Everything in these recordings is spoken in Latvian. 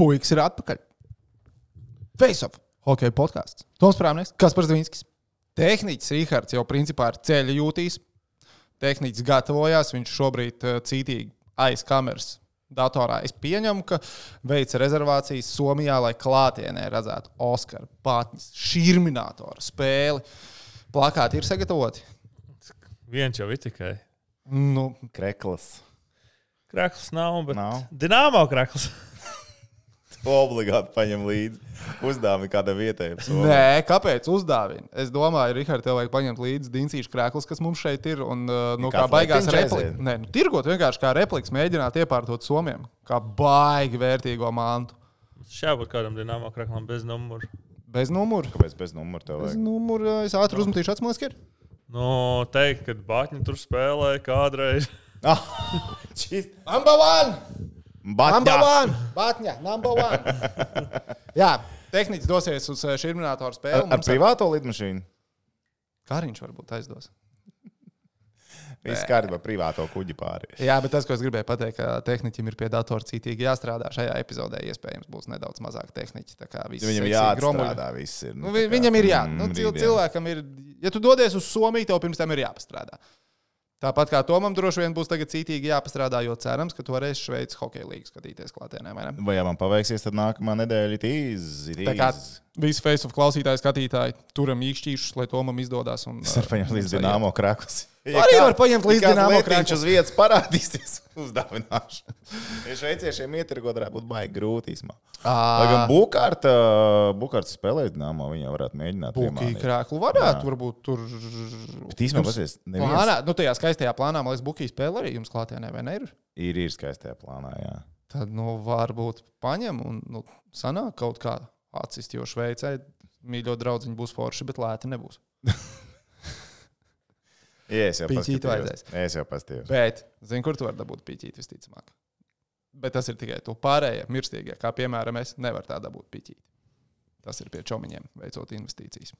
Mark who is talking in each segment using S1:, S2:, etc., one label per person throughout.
S1: Puikas ir atpakaļ. Face Off, hokeja podkāsts. Toms Prāmnieks, Kaspars Dvinskis. Tehniķis Rihards jau principā ir ceļa jūtīs. Tehniķis gatavojās, viņš šobrīd cītīgi aiz kameras datorā. Es pieņemu, ka veica rezervācijas Somijā, lai klātienē redzētu Oskara Patņas širminātora spēli. Plakāti ir sagatavoti?
S2: Viens jau ir tikai.
S1: Nu,
S3: Krekls.
S2: Krekls nav, bet
S3: Nav.
S2: Dinamo krekls.
S3: Obligāti paņem līdzi. Uzdāvini kādam vietējam.
S1: nē, kāpēc uzdāvina? Es domāju, Rihard, tev vajag paņemt līdzi dincīšu krēklus, kas mums šeit ir. Un, kā baigās replikas. Nē, tirgot vienkārši kā replikas, mēģināt iepārtot somiem. Kā baigi vērtīgo mantu.
S2: Šābūt kādam Dinamo kreklam bez numuru.
S1: Bez numura.
S3: Kāpēc bez numura tev
S1: Bez
S3: vajag?
S1: numura. Es ātri uzmetīšu atsmās, ka ir.
S2: Nu, teikt, ka Batņa tur spēlēja kādreiz.
S1: Number one! Number
S3: Batņā.
S1: one! Batņa, number one! Jā, tehniķis dosies uz širminātoru spēli.
S3: Ar privāto lidmašīnu?
S1: Kāriņš varbūt aizdos.
S3: Viss kārtībā privāto kuģi pāri.
S1: Jā, bet tas, ko es gribēju pateikt, ka tehniķim ir pie datora cītīgi jāstrādā. Šajā epizodē iespējams būs nedaudz mazāk tehniķi.
S3: Viņam jāatstrādā viss ir.
S1: Nu, viņam ir jā. Cilvēkam ir, ja tu dodies uz Somiju, tev pirms tam ir jāpastrādā. Tāpat kā Tomam droši vien būs tagad cītīgi jāpastrādā, jo cerams, ka tu varēsi Šveices hokeja līgu skatīties klātienē.
S3: Vai ja man paveiksies, tad nākamā nedēļa ir
S1: Tā kā visi Face Off klausītāji, skatītāji turam īkšķīšus, lai Tomam izdodas.
S3: Es varu paņemt līdz Dinamo Krakus.
S1: Arī var paņemt līdz Dinamo
S3: Krakus.
S1: Krakus.
S3: Uz vietas parādīsies uzdāvināšu. Ja šveiciešiem ietirgot varētu būt baigi grūti īsumā. Lai gan Bukārts spēlēs Dinamo, viņa varētu mēģināt.
S1: Bukī krēklu varētu, varbūt tur.
S3: Bet īsumā pasies,
S1: Plānā, nu tajā skaistajā plānā, man liekas, Bukī spēle arī jums klātienē, vai ne ir?
S3: Ir skaistajā plānā, jā.
S1: Tad, nu, varbūt paņem un, nu, sanāk kaut kā atsist, jo Šveicē mīļo draudziņu būs forši, bet lēti nebūs.
S3: Jā, es jau
S1: Pīķīt vajadzēs.
S3: Es jau pastījos.
S1: Bet, zini, kur tu vari dabūt pīķīt visticamāk? Bet tas ir tikai tu pārējie mirstīgie, kā piemēram es, nevar tā dabūt pīķīt. Tas ir pie čomiņiem, veicot investīcijas.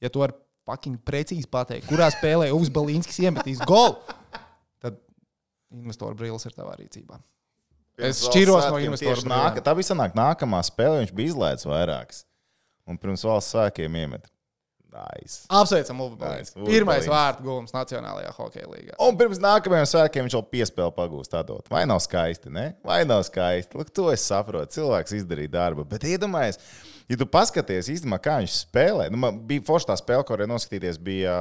S1: Ja tu vari fucking precīzi pateikt, kurā spēlē Uvis Balīnskis iemetīs golu, tad investoru brīlis ir tavā rīcībā. Es šķiros no investoru brīliem.
S3: Tā bija sanāk nākamā spēle, viņš bija izlaists vairākas. Un pirms valsts svētkiem iemet. Nice.
S1: Apsveicam Uvi Balīnski.
S3: Nice.
S1: Pirmais vārtu gūms Nacionālajā hokeja līgā.
S3: Un pirms nākamajiem svētkiem viņš vēl piespēli pagūst tādot. Vai nav skaisti, ne? Vai nav skaisti? Lūk, to es saprotu. Cilvēks izdarīja darbu. Bet iedomājies, ja tu paskaties īstenībā, kā viņš spēlē. Nu, man bija forši tā spēle, ko varēja noskatīties, bija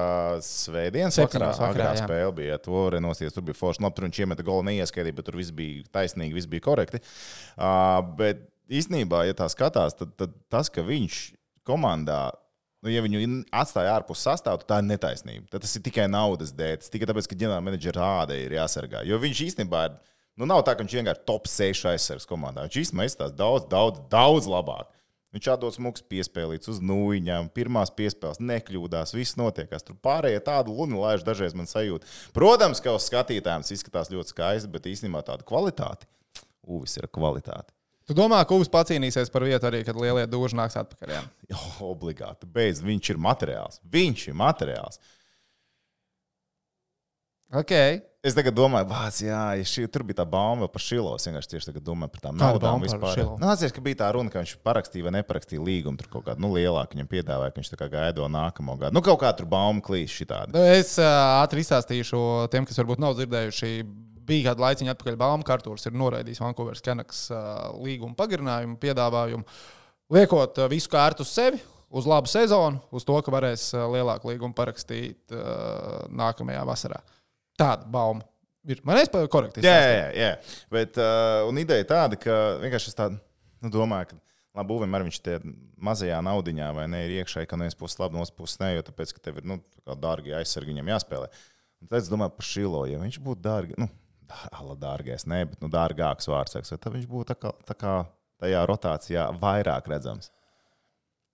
S3: svētdienas vakarā. Agrā spēle bija, to varēja noskatīties. Tur bija forši. Nu, tur viņš iemeta golu neieskaitīja, bet tur viss bija taisnīgi, viss bija korekti. Bet īstenībā, ja tā skatās, tad tas, ka viņš komandā, nu, ja viņu atstāja ārpus sastāvu, tā ir netaisnība. Tad tas ir tikai naudas dēļ. Tas tikai tāpēc, ka ģenerāla menedžera āda ir jāsargā. Jo viņš īstenībā ir, nu, nav tā, ka viņš vienkārši top 6 aizsargs komandā. Viņš īstenībā izstās daudz labāk. Viņš atdos smuks piespēlīts uz nūjiņām, pirmās piespēles nekļūdās, viss notiekās. Tur pārējie tādu luni laiž dažreiz man sajūta. Protams, ka uz skatītājiem tas izskatās ļoti skaisti, bet īstenībā tāda kvalitāte. Uvis ir kvalitāte.
S1: Tu domā, ka Uvis pacīnīsies par vietu arī, kad lielie dūži nāks atpakaļ? Jā?
S3: Jo, obligāti. Beidz, viņš ir materiāls. Viņš ir materiāls.
S1: Ok.
S3: Es tagad domāju, tur bija tā bauma par Šilo. Es vienkārši tieši tagad domāju par tām naudām vispār. Nācies, ka bija tā runa, ka viņš parakstīja vai neparakstīja līgumu. Tur kaut kādu lielāku viņam piedāvāja, ka viņš tā kā gaido nākamo gadu. Nu, kaut kā tur bauma klīst šitādi.
S1: Es ātri izstāstīšu tiem, kas varbūt nav dzirdējuši. Bija kāda laiciņa atpakaļ Baumkārtūrs ir noraidījis Vancouveras Canucks līguma pagarinājumu, piedāvājumu, liekot visu kārtu uz sevi, uz labu sezonu, uz to, ka varēs lielāku līgumu parakstīt nākamajā vasarā. Tāda bauma ir. Man es korekti izstāstīju.
S3: Jā. Bet, un ideja tāda, ka vienkārši es tādu domāju, ka labi, Uvim arī viņš tie mazajā naudiņā vai ne ir iekšēji, ka no vienas puses labi, no otras puses ne, jo tāpēc, ka tev ir, dārgi aizsargi viņam jāspēlē. Un tad es domāju par Šilo, ja viņš būtu dārgi, dārgais, ne, bet dārgāks vārds, tad viņš būtu tā kā tajā rotācijā vairāk redzams.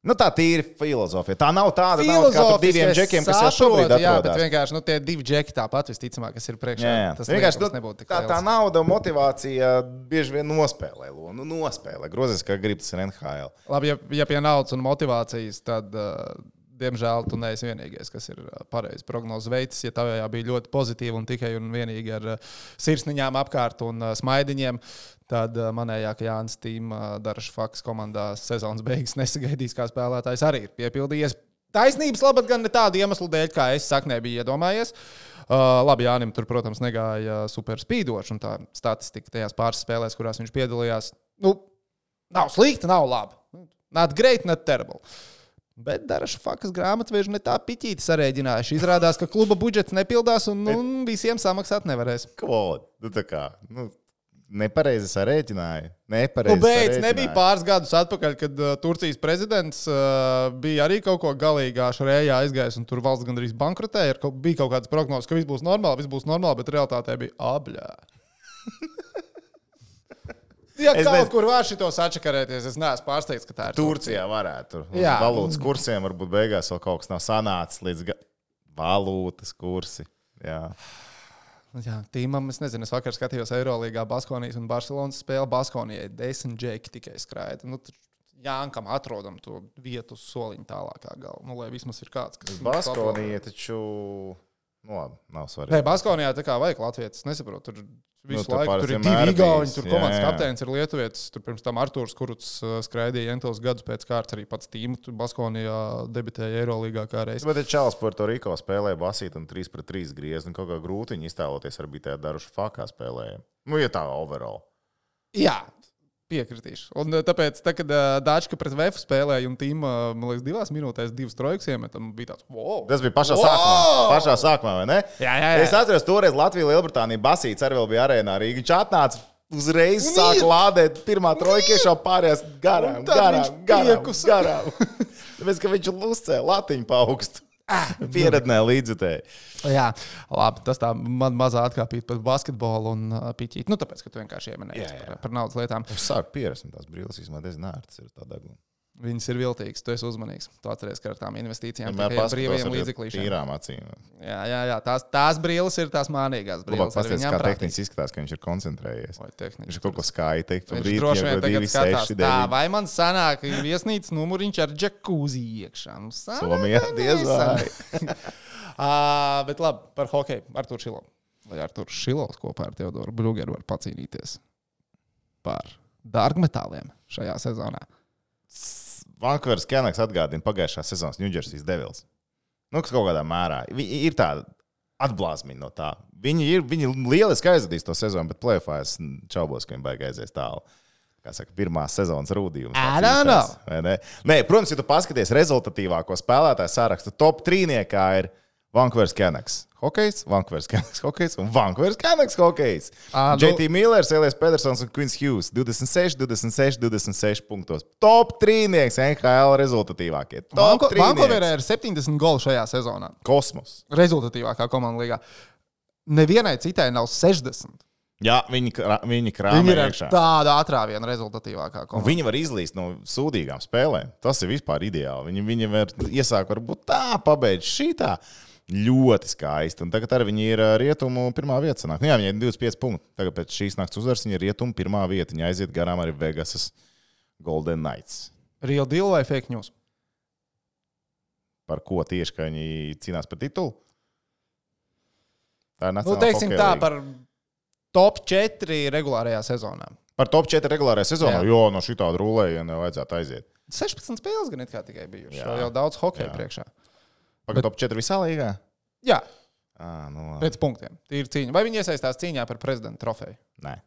S3: Nu, tā tīri filozofija. Tā nav tāda nauda kā par diviem džekiem, kas jau šobrīd atrodas.
S1: Jā, bet vienkārši tie divi džeki tāpat visticamāk, kas ir priekšā.
S3: Jā.
S1: Tas
S3: vienkārši
S1: nebūtu tik
S3: tā nauda un motivācija bieži vien nospēlē. Nospēlē. Grozies, kā grib tas ir NHL.
S1: Labi, ja pie naudas un motivācijas, tad diemžēl tu neesi vienīgais, kas ir pareizi prognozes veids. Ja tavējā bija ļoti pozitīva un tikai un vienīgi ar sirsniņām apkārt un smaidiņiem, tad manējā, ka Jānis Tīma Daraša Fakas komandā sezonas beigas nesagaidīs kā spēlētājs, arī ir piepildījies. Taisnības labad gan ne tādu iemeslu dēļ, kā es saknē biju iedomājies. Labi, Jānim tur, protams, negāja super spīdoši, un tā statistika tajās pāris spēlēs, kurās viņš piedalījās, nav slikta, nav laba. Not great, not terrible. Bet Daraša Fakas grāmatveži ne tā piķīti sarēģinājuši. Izrādās, ka kluba budžets nepildās un visiem samaksāt nevarēs.
S3: Ko? Tā kā, nepareizi sarēķināja.
S1: Nebija pāris gadus atpakaļ, kad Turcijas prezidents bija arī kaut ko galīgā šarējā aizgājis, un tur valsts gandrīz bankrotēja. Bija kaut kādas prognozes, ka viss būs normāli, bet realitātē bija abļā. Ja kaut kur var šitos atšakarēties, es neesmu pārsteigts, ka tā ir
S3: Turcijā varētu. Uz valūtas kursiem varbūt beigās vēl kaut kas nav sanācis līdz valūtas kursi. Jā,
S1: Tīmam, es nezinu, es vakar skatījos Eirolīgā Baskonijas un Barcelonas spēli. Baskonijai 10 džeki tikai skraida. Jānkam atrodam to vietu uz soliņa tālākā galva. Lai vismaz ir kāds, kas...
S3: Baskonija taču... nav svarīgi.
S1: Baskonijā tā kā vajag latvietis, nesaprotu. Tur visu laiku tur ir 2 igauņi, tur komandas kapteinis ir lietuvietis. Tur pirms tam Artūrs Kuruts skraidīja entos gadus pēc kārtas, arī pats Tīma Baskonijā debitēja Eirolīgā kā reiz.
S3: Bet Čāls Puerto Riko spēlēja basīt un 3-3 griez, un kaut kā grūti viņi iztēloties arī bija tajā Daraša Fakā spēlēja. Ja tā overall.
S1: Jā. Piekritīšu. Un tāpēc, kad Dāčka pret Vefu spēlēja un Tīma, man liekas, 2 minūtēs 2 trojkas iemetam, bija tāds, wow!
S3: Tas bija pašā sākumā, vai ne?
S1: Jā.
S3: Es atceros, toreiz Latvija, Lielbritānija basīts arī vēl bija arēnā Rīga. Viņš atnāca uzreiz sāka lādēt pirmā trojka iešā pārējās garām. Tāpēc, ka viņš uzcēla latiņu pa augstu. Pierednē līdzutēji.
S1: Jā, labi, tas tā man mazā atkāpīt par basketbolu un piķīt. Tāpēc, ka tu vienkārši ieminēji par naudas lietām.
S3: Es sāku pierast, un tās brīles īstenībā diezgan ērtas ir tā deguna.
S1: Viņas ir viltīgas, tu esi uzmanīgs. Tu atceries, ka ar tām investīcijām tikai brīvajiem līdzeklīšiem.
S3: Tīrām acīm.
S1: Jā, tās brīles ir tās mānīgās brīles.
S3: Pasties, kā tehniski izskatās, ka viņš ir koncentrējies. Viņš ir kaut ko skaisti teikt.
S1: Viņš droši vien tagad skatās tā, vai man sanāk viesnīcas numuriņš ar džekūzi iekšā.
S3: Somijā diez vai.
S1: Bet labi, par hokeju. Artūrs Šilovs. Vai Artūrs Šilovs kopā ar Teodoru Brugeru var pacīnīties par dārgmetāliem šajā sezonā?
S3: Vankūveras Canucks atgādina pagājušās sezonas New Jersey Devils. Kaut kādā mērā. Ir tāda atblāzmiņa no tā. Viņi lieliski aizvadīs to sezonu, bet play-offā es čaubos, ka viņi baigi aizies tālu. Kā saka, pirmās sezonas rūdījums. Nē, protams, ja tu paskaties rezultatīvāko spēlētāju sarakstu, top 3-niekā ir Vankūveras Canucks hokejs, Vankūveras Canucks hokejs un Vankūveras Canucks hokejs. JT Millers, Elias Pedersons un Quins Hughes 26 punktos. Top 3-nieks NHL rezultatīvākie.
S1: Vankūverā ir 70 golu šajā sezonā.
S3: Kosmos.
S1: Rezultatīvākā komanda līgā. Nevienai citai nav 60.
S3: Jā, viņi krāmē iekšā.
S1: Tāda atrāviena rezultatīvākā komanda.
S3: Viņi var izlīst no sūdīgām spēlēm. Tas ir vispār ideāli. Viņi var iesākt varbūt tā, pabeidz šitā. Ļoti skaisti. Un tagad arī viņi ir rietumu pirmā vieta. Sanāk. Jā, viņi ir 25 punkti. Tagad pēc šīs nakts uzvaras viņi ir rietumu pirmā vieta. Viņi aiziet garām arī Vegasas Golden Knights.
S1: Real deal vai fake news?
S3: Par ko tieši, ka viņi cīnās par titulu? Tā ir nacionālā
S1: teiksim tā, par top 4 regulārajā sezonā.
S3: Par top 4 regulārajā sezonā? Jo, no šitāda rulējiena vajadzētu aiziet.
S1: 16 spēles gan it kā tikai bijuši. Jau daudz hokeja priekšā.
S3: Pagaid top 4 visā līgā?
S1: Jā.
S3: Pēc
S1: punktiem. Tīri cīņa. Vai viņi iesaistās cīņā par prezidenta trofeju?
S3: Nē.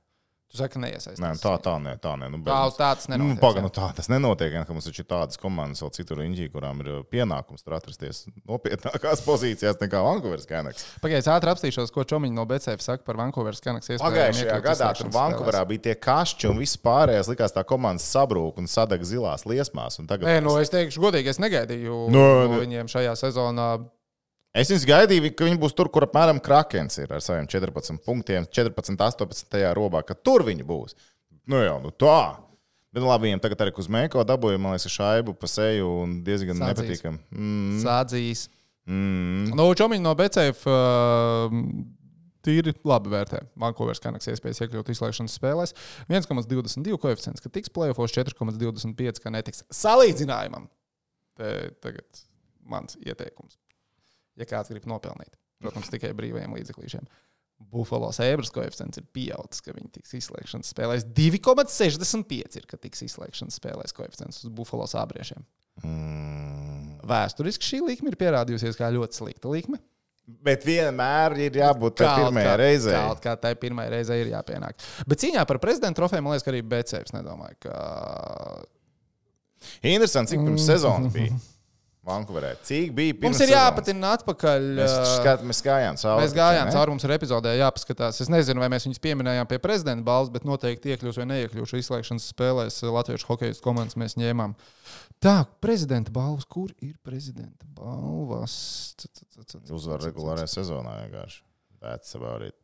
S1: Tu saki, ka neiesaistās.
S3: Nē, tā nē.
S1: Tas nenotiek.
S3: Tā tas nenotiek. Mums taču ir tādas komandas vēl citur Inģī, kurām ir pienākums tur atrasties nopietnākās pozīcijās nekā Vankūveras Canucks.
S1: Pagaidiet, ātri apstīšos, ko Čomiņš no BCF saka par Vankūveras Canucks.
S3: Pagājušajā gadā tur Vankūverā bija tie kašķi un viss pārējais likās tā komandas sabrūk un sadeg zilās liesmās. Tagad...
S1: Nē, es teikšu godīgi, es negaidīju no viņiem šajā sezonā.
S3: Es viņus gaidīju, ka viņi būs tur, kur apmēram Krakens ir ar saviem 14 punktiem, 14-18 robā, ka tur viņi būs. Tā. Bet labi, viņiem tagad arī Kuzmēko dabūja, man liekas, šaibu pa seju un diezgan nepatīkam.
S1: Sādzīs. Čomiņi no BCF tīri labi vērtē. Vankūveras Canucks iespējas iekļūt izslēgšanas spēlēs. 1,22 koeficients, ka tiks play-offos, 4,25, ka netiks. Salīdzinājumam. Tagad mans ieteikums. Ja kāds grib nopelnīt, protams, tikai brīvajiem līdzeklīšiem. Buffalo Sabres koeficients ir pieaudzis, ka viņi tiks izslēgšanas spēlēs. 2,65 ir, ka tiks izslēgšanas spēlēs koeficients uz Buffalo Sabriešiem. Vēsturiski šī likme ir pierādījusies kā ļoti slikta likme.
S3: Bet vienmēr ir jābūt tai pirmajai reizei.
S1: Kaut kā tai pirmajai reizei ir jāpienāk. Bet cīņā par prezidenta trofeju, man liekas, ka arī BCFs nedomāju, ka...
S3: Interesanti, cik pirms sezonas bija Vankūverē. Cik bija pirms
S1: mums ir jāpatina atpakaļ.
S3: Mēs gājām cauri.
S1: Mēs gājām cauri, mums ir epizodē jāpaskatās. Es nezinu, vai mēs viņus pieminējām pie prezidenta balvas, bet noteikti iekļūs vai neiekļūs izslēgšanas spēlēs latviešu hokejas komandas mēs ņēmām. Tā, prezidenta balvas. Kur ir prezidenta balvas?
S3: Uzvar regulārajā sezonā vienkārši. That's about it.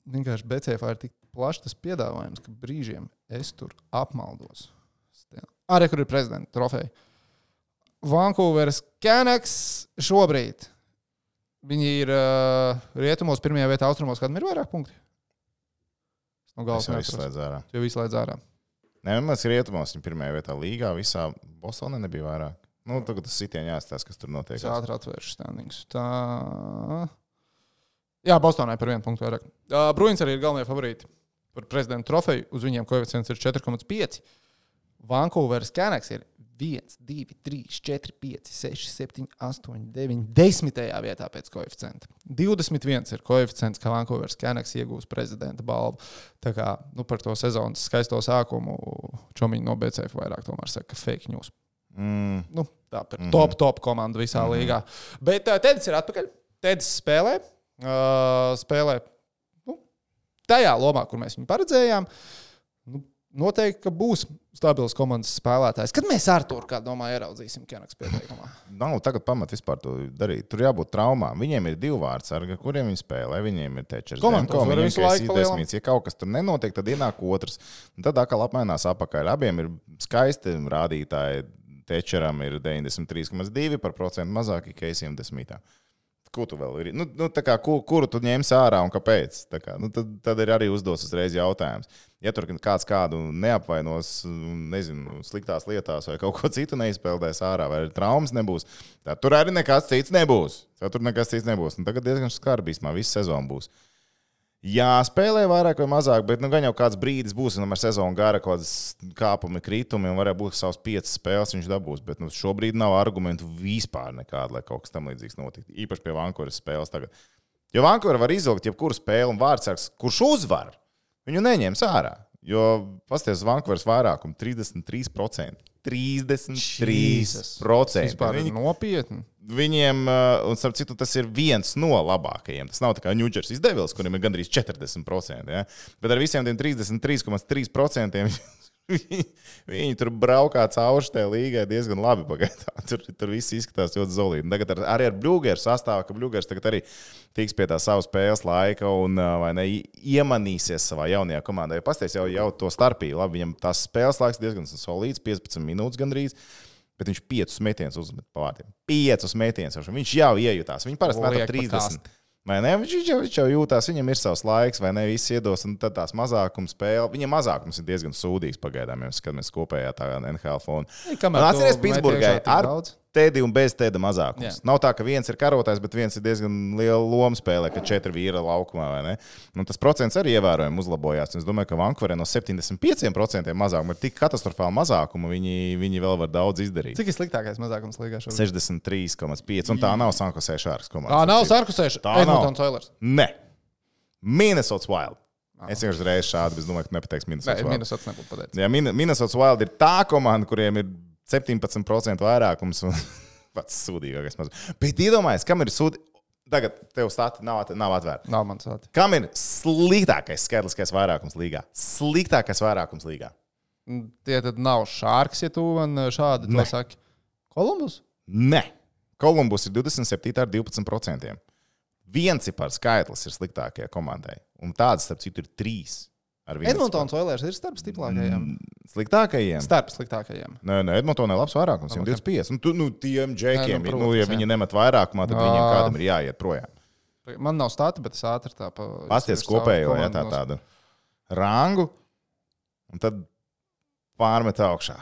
S1: Vienkārši BCF ir tik plašs tas piedāvājums, ka brīžiem es tur apmaldos. Arī, kur ir prezidenta trofeja. Vancouveras Canucks šobrīd. Viņi ir rietumos pirmajā vietā, austrumos, kādam ir vairāk punkti? No
S3: es jau izslēdzu ārā.
S1: Jo izslēdz ārā.
S3: Nē, mēs rietumos, viņi pirmajā vietā līgā, visā Bostonē nebija vairāk. Nu, tagad tas sitieni jāstāsta, kas tur notiek.
S1: Es ātri atvēršu standings. Tā... Jā, Bostonē par 1 punktu vairāk. Bruins arī ir galvenie favorīti par prezidenta trofeju. Uz viņiem koeficients ir 4,5. Vancouveras Canucks ir 1, 2, 3, 4, 5, 6, 7, 8, 9, 10. vietā pēc koeficienta. 21 ir koeficients, ka Vancouveras Canucks iegūs prezidenta balvu. Tā kā par to sezonas skaisto sākumu čomiņi no BCF vairāk tomēr saka fake news. Tā par top komandu visā līgā. Bet Tedis ir atpakaļ. Tedis spēlē. Spēlē tajā lomā, kur mēs viņu paredzējām. Noteikti, ka būs stabils komandas spēlētājs. Kad mēs Arturu, kā domāju, ieraudzīsim Canucks pieteikumā?
S3: Nav tagad pamat vispār to darīt. Tur jābūt traumām. Viņiem ir 2 vārdsargi, kuriem viņi spēlē. Viņiem ir Tečers. Viņiem ir 10. Ja kaut kas tur nenotiek, tad ienāk otrs. Un tad atkal apmainās apakaļ. Abiem ir skaisti rādītāji. Tečeram ir 93,2% mazāk, Keisiem 10. Ko tu vēl ir? Kuru tu ņemsi ārā un kāpēc? Tad ir arī uzdos uzreiz jautājums. Ja tur kāds kādu neapvainos, nezinu, sliktās lietās vai kaut ko citu neizpeldēs ārā, vai traumas nebūs, tad tur arī nekas cits nebūs. Un tagad diezgan skarbīsmā visu sezonu būs. Jā, spēlē vairāk vai mazāk, bet gan jau kāds brīdis būs, un ar sezonu gara kaut kādas kāpumi, kritumi, un varētu būt savas 5 spēles viņš dabūs, bet šobrīd nav argumentu vispār nekāda, lai kaut kas tam līdzīgs notiktu. Īpaši pie Vancouveras spēles tagad. Jo Vancouver var izvilkt jebkuru spēli un vārdsargs, kurš uzvar, viņu neņems ārā. Jo pasties Vancouveras vairākumu 33%. 33%.
S1: Vispār ir nopietni.
S3: Viņiem, un starp citu, tas ir viens no labākajiem. Tas nav tā kā New Jersey Devils, kuriem ir gandrīz 40%. Ja? Bet ar visiem tiem 33,3% viņi tur braukā cauri šai līgai diezgan labi pagaidām. Tur viss izskatās ļoti zolīti. Tagad arī ar Bļūgeru sastāvu, ka Bļūgers tagad arī tiks pie tā savu spēles laika un iemanīsies savā jaunajā komandā. Ja pasties jau to starpību, labi, viņam tās spēles laiks diezgan solīts, 15 minūtes gandrīz. Bet viņš 5 metienus uzmet pa vārtiem. 5 metienus. Viņš jau iejutās. Viņi parasti met 30. Vai ne? Viņš jau jūtās, viņam ir savs laiks, vai ne? Viss iedos, un tad tās mazākuma spēle. Viņam mazākums ir diezgan sūdīgs pagaidām, ja skatāmies kopējā tā NHL fona. Atceries Pitsburgai ar Tedi un bez Teda mazākums. Nav tā, ka viens ir karotājs, bet viens ir diezgan liela loma spēlē, ka 4 vīra laukumā, vai ne? Un tas procents arī ievērojami uzlabojās. Es domāju, ka Vancouverē no 75% mazākuma ir tik katastrofāli mazākuma, viņi vēl var daudz izdarīt.
S1: Cik ir sliktākais mazākums līgā šobrīd?
S3: 63,5, un tā nav San Jose Sharks komanda.
S1: Nav San Jose Edmontons Oilers.
S3: Ne. Minnesota Wild. Es vienkārši reiz šādi, bet es domāju, ka nepateiks Minnesota Wild.
S1: Minnesota nebūtu pateicis.
S3: Jā, Minnesota Wild ir tā komanda, kuriem ir 17% vairākums un pats sūdīgākais mazs. Bet iedomājies, kam ir sūdīgi? Tagad tev stati nav atvērta.
S1: Nav man stati.
S3: Kam ir sliktākais skaitliskais vairākums līgā? Sliktākais vairākums līgā.
S1: Tie tad nav Sharks, ja tu man šādi to saki. Columbus?
S3: Ne. Columbus ir 27 ar 12%. Viens par skaitlis ir sliktākajai komandai. Un tāds, starp citu, ir 3.
S1: Edmontons Oilers ir starp stiprākajiem.
S3: Sliktākajiem?
S1: Starp sliktākajiem.
S3: Nē, Edmontonai labs vairākums, 25. Un tiem džekiem, ja viņi nemet vairākumā, tad viņiem kādam ir jāiet projām.
S1: Man nav stati, bet es ātri tā
S3: pasties kopējo, ja tādu rangu, un tad pārmet augšā.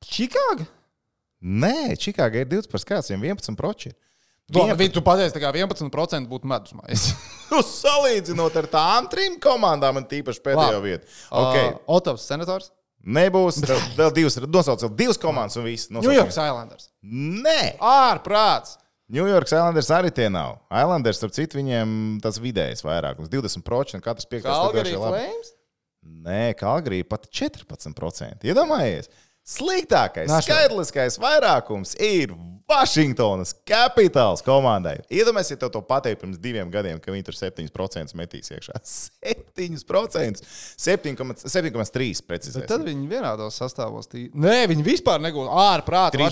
S1: Čikāga?
S3: Nē, Čikāga ir 20 par skats, viņiem 11%.
S1: Tu pateici, ka 11% būtu medusmais.
S3: Salīdzinot ar tām 3 komandām, man tīpaši pēdējo vietu. Okay.
S1: Otovs senators?
S3: Nebūs. Vēl divas. Nosauc vēl 2 komandas un viss.
S1: New York Islanders.
S3: Nē.
S1: Ārprāts.
S3: New York Islanders arī tie nav. Islanders, starp citu, viņiem tas vidējais vairākums. 20%, katrs 5.
S1: Calgary Flames?
S3: Nē, Calgary pat 14%. Iedomājies? Sliktākais, skaitliskais vairākums ir Vašingtonas Capitals komandai. Iedomājieties, ja tev to pateikt pirms 2 gadiem, ka viņi tur 7% metīs iekšā. 7%! 7,3% precīzāk.
S1: Tad viņi vienādos sastāvos. Nē, viņi vispār negūst ārprātā.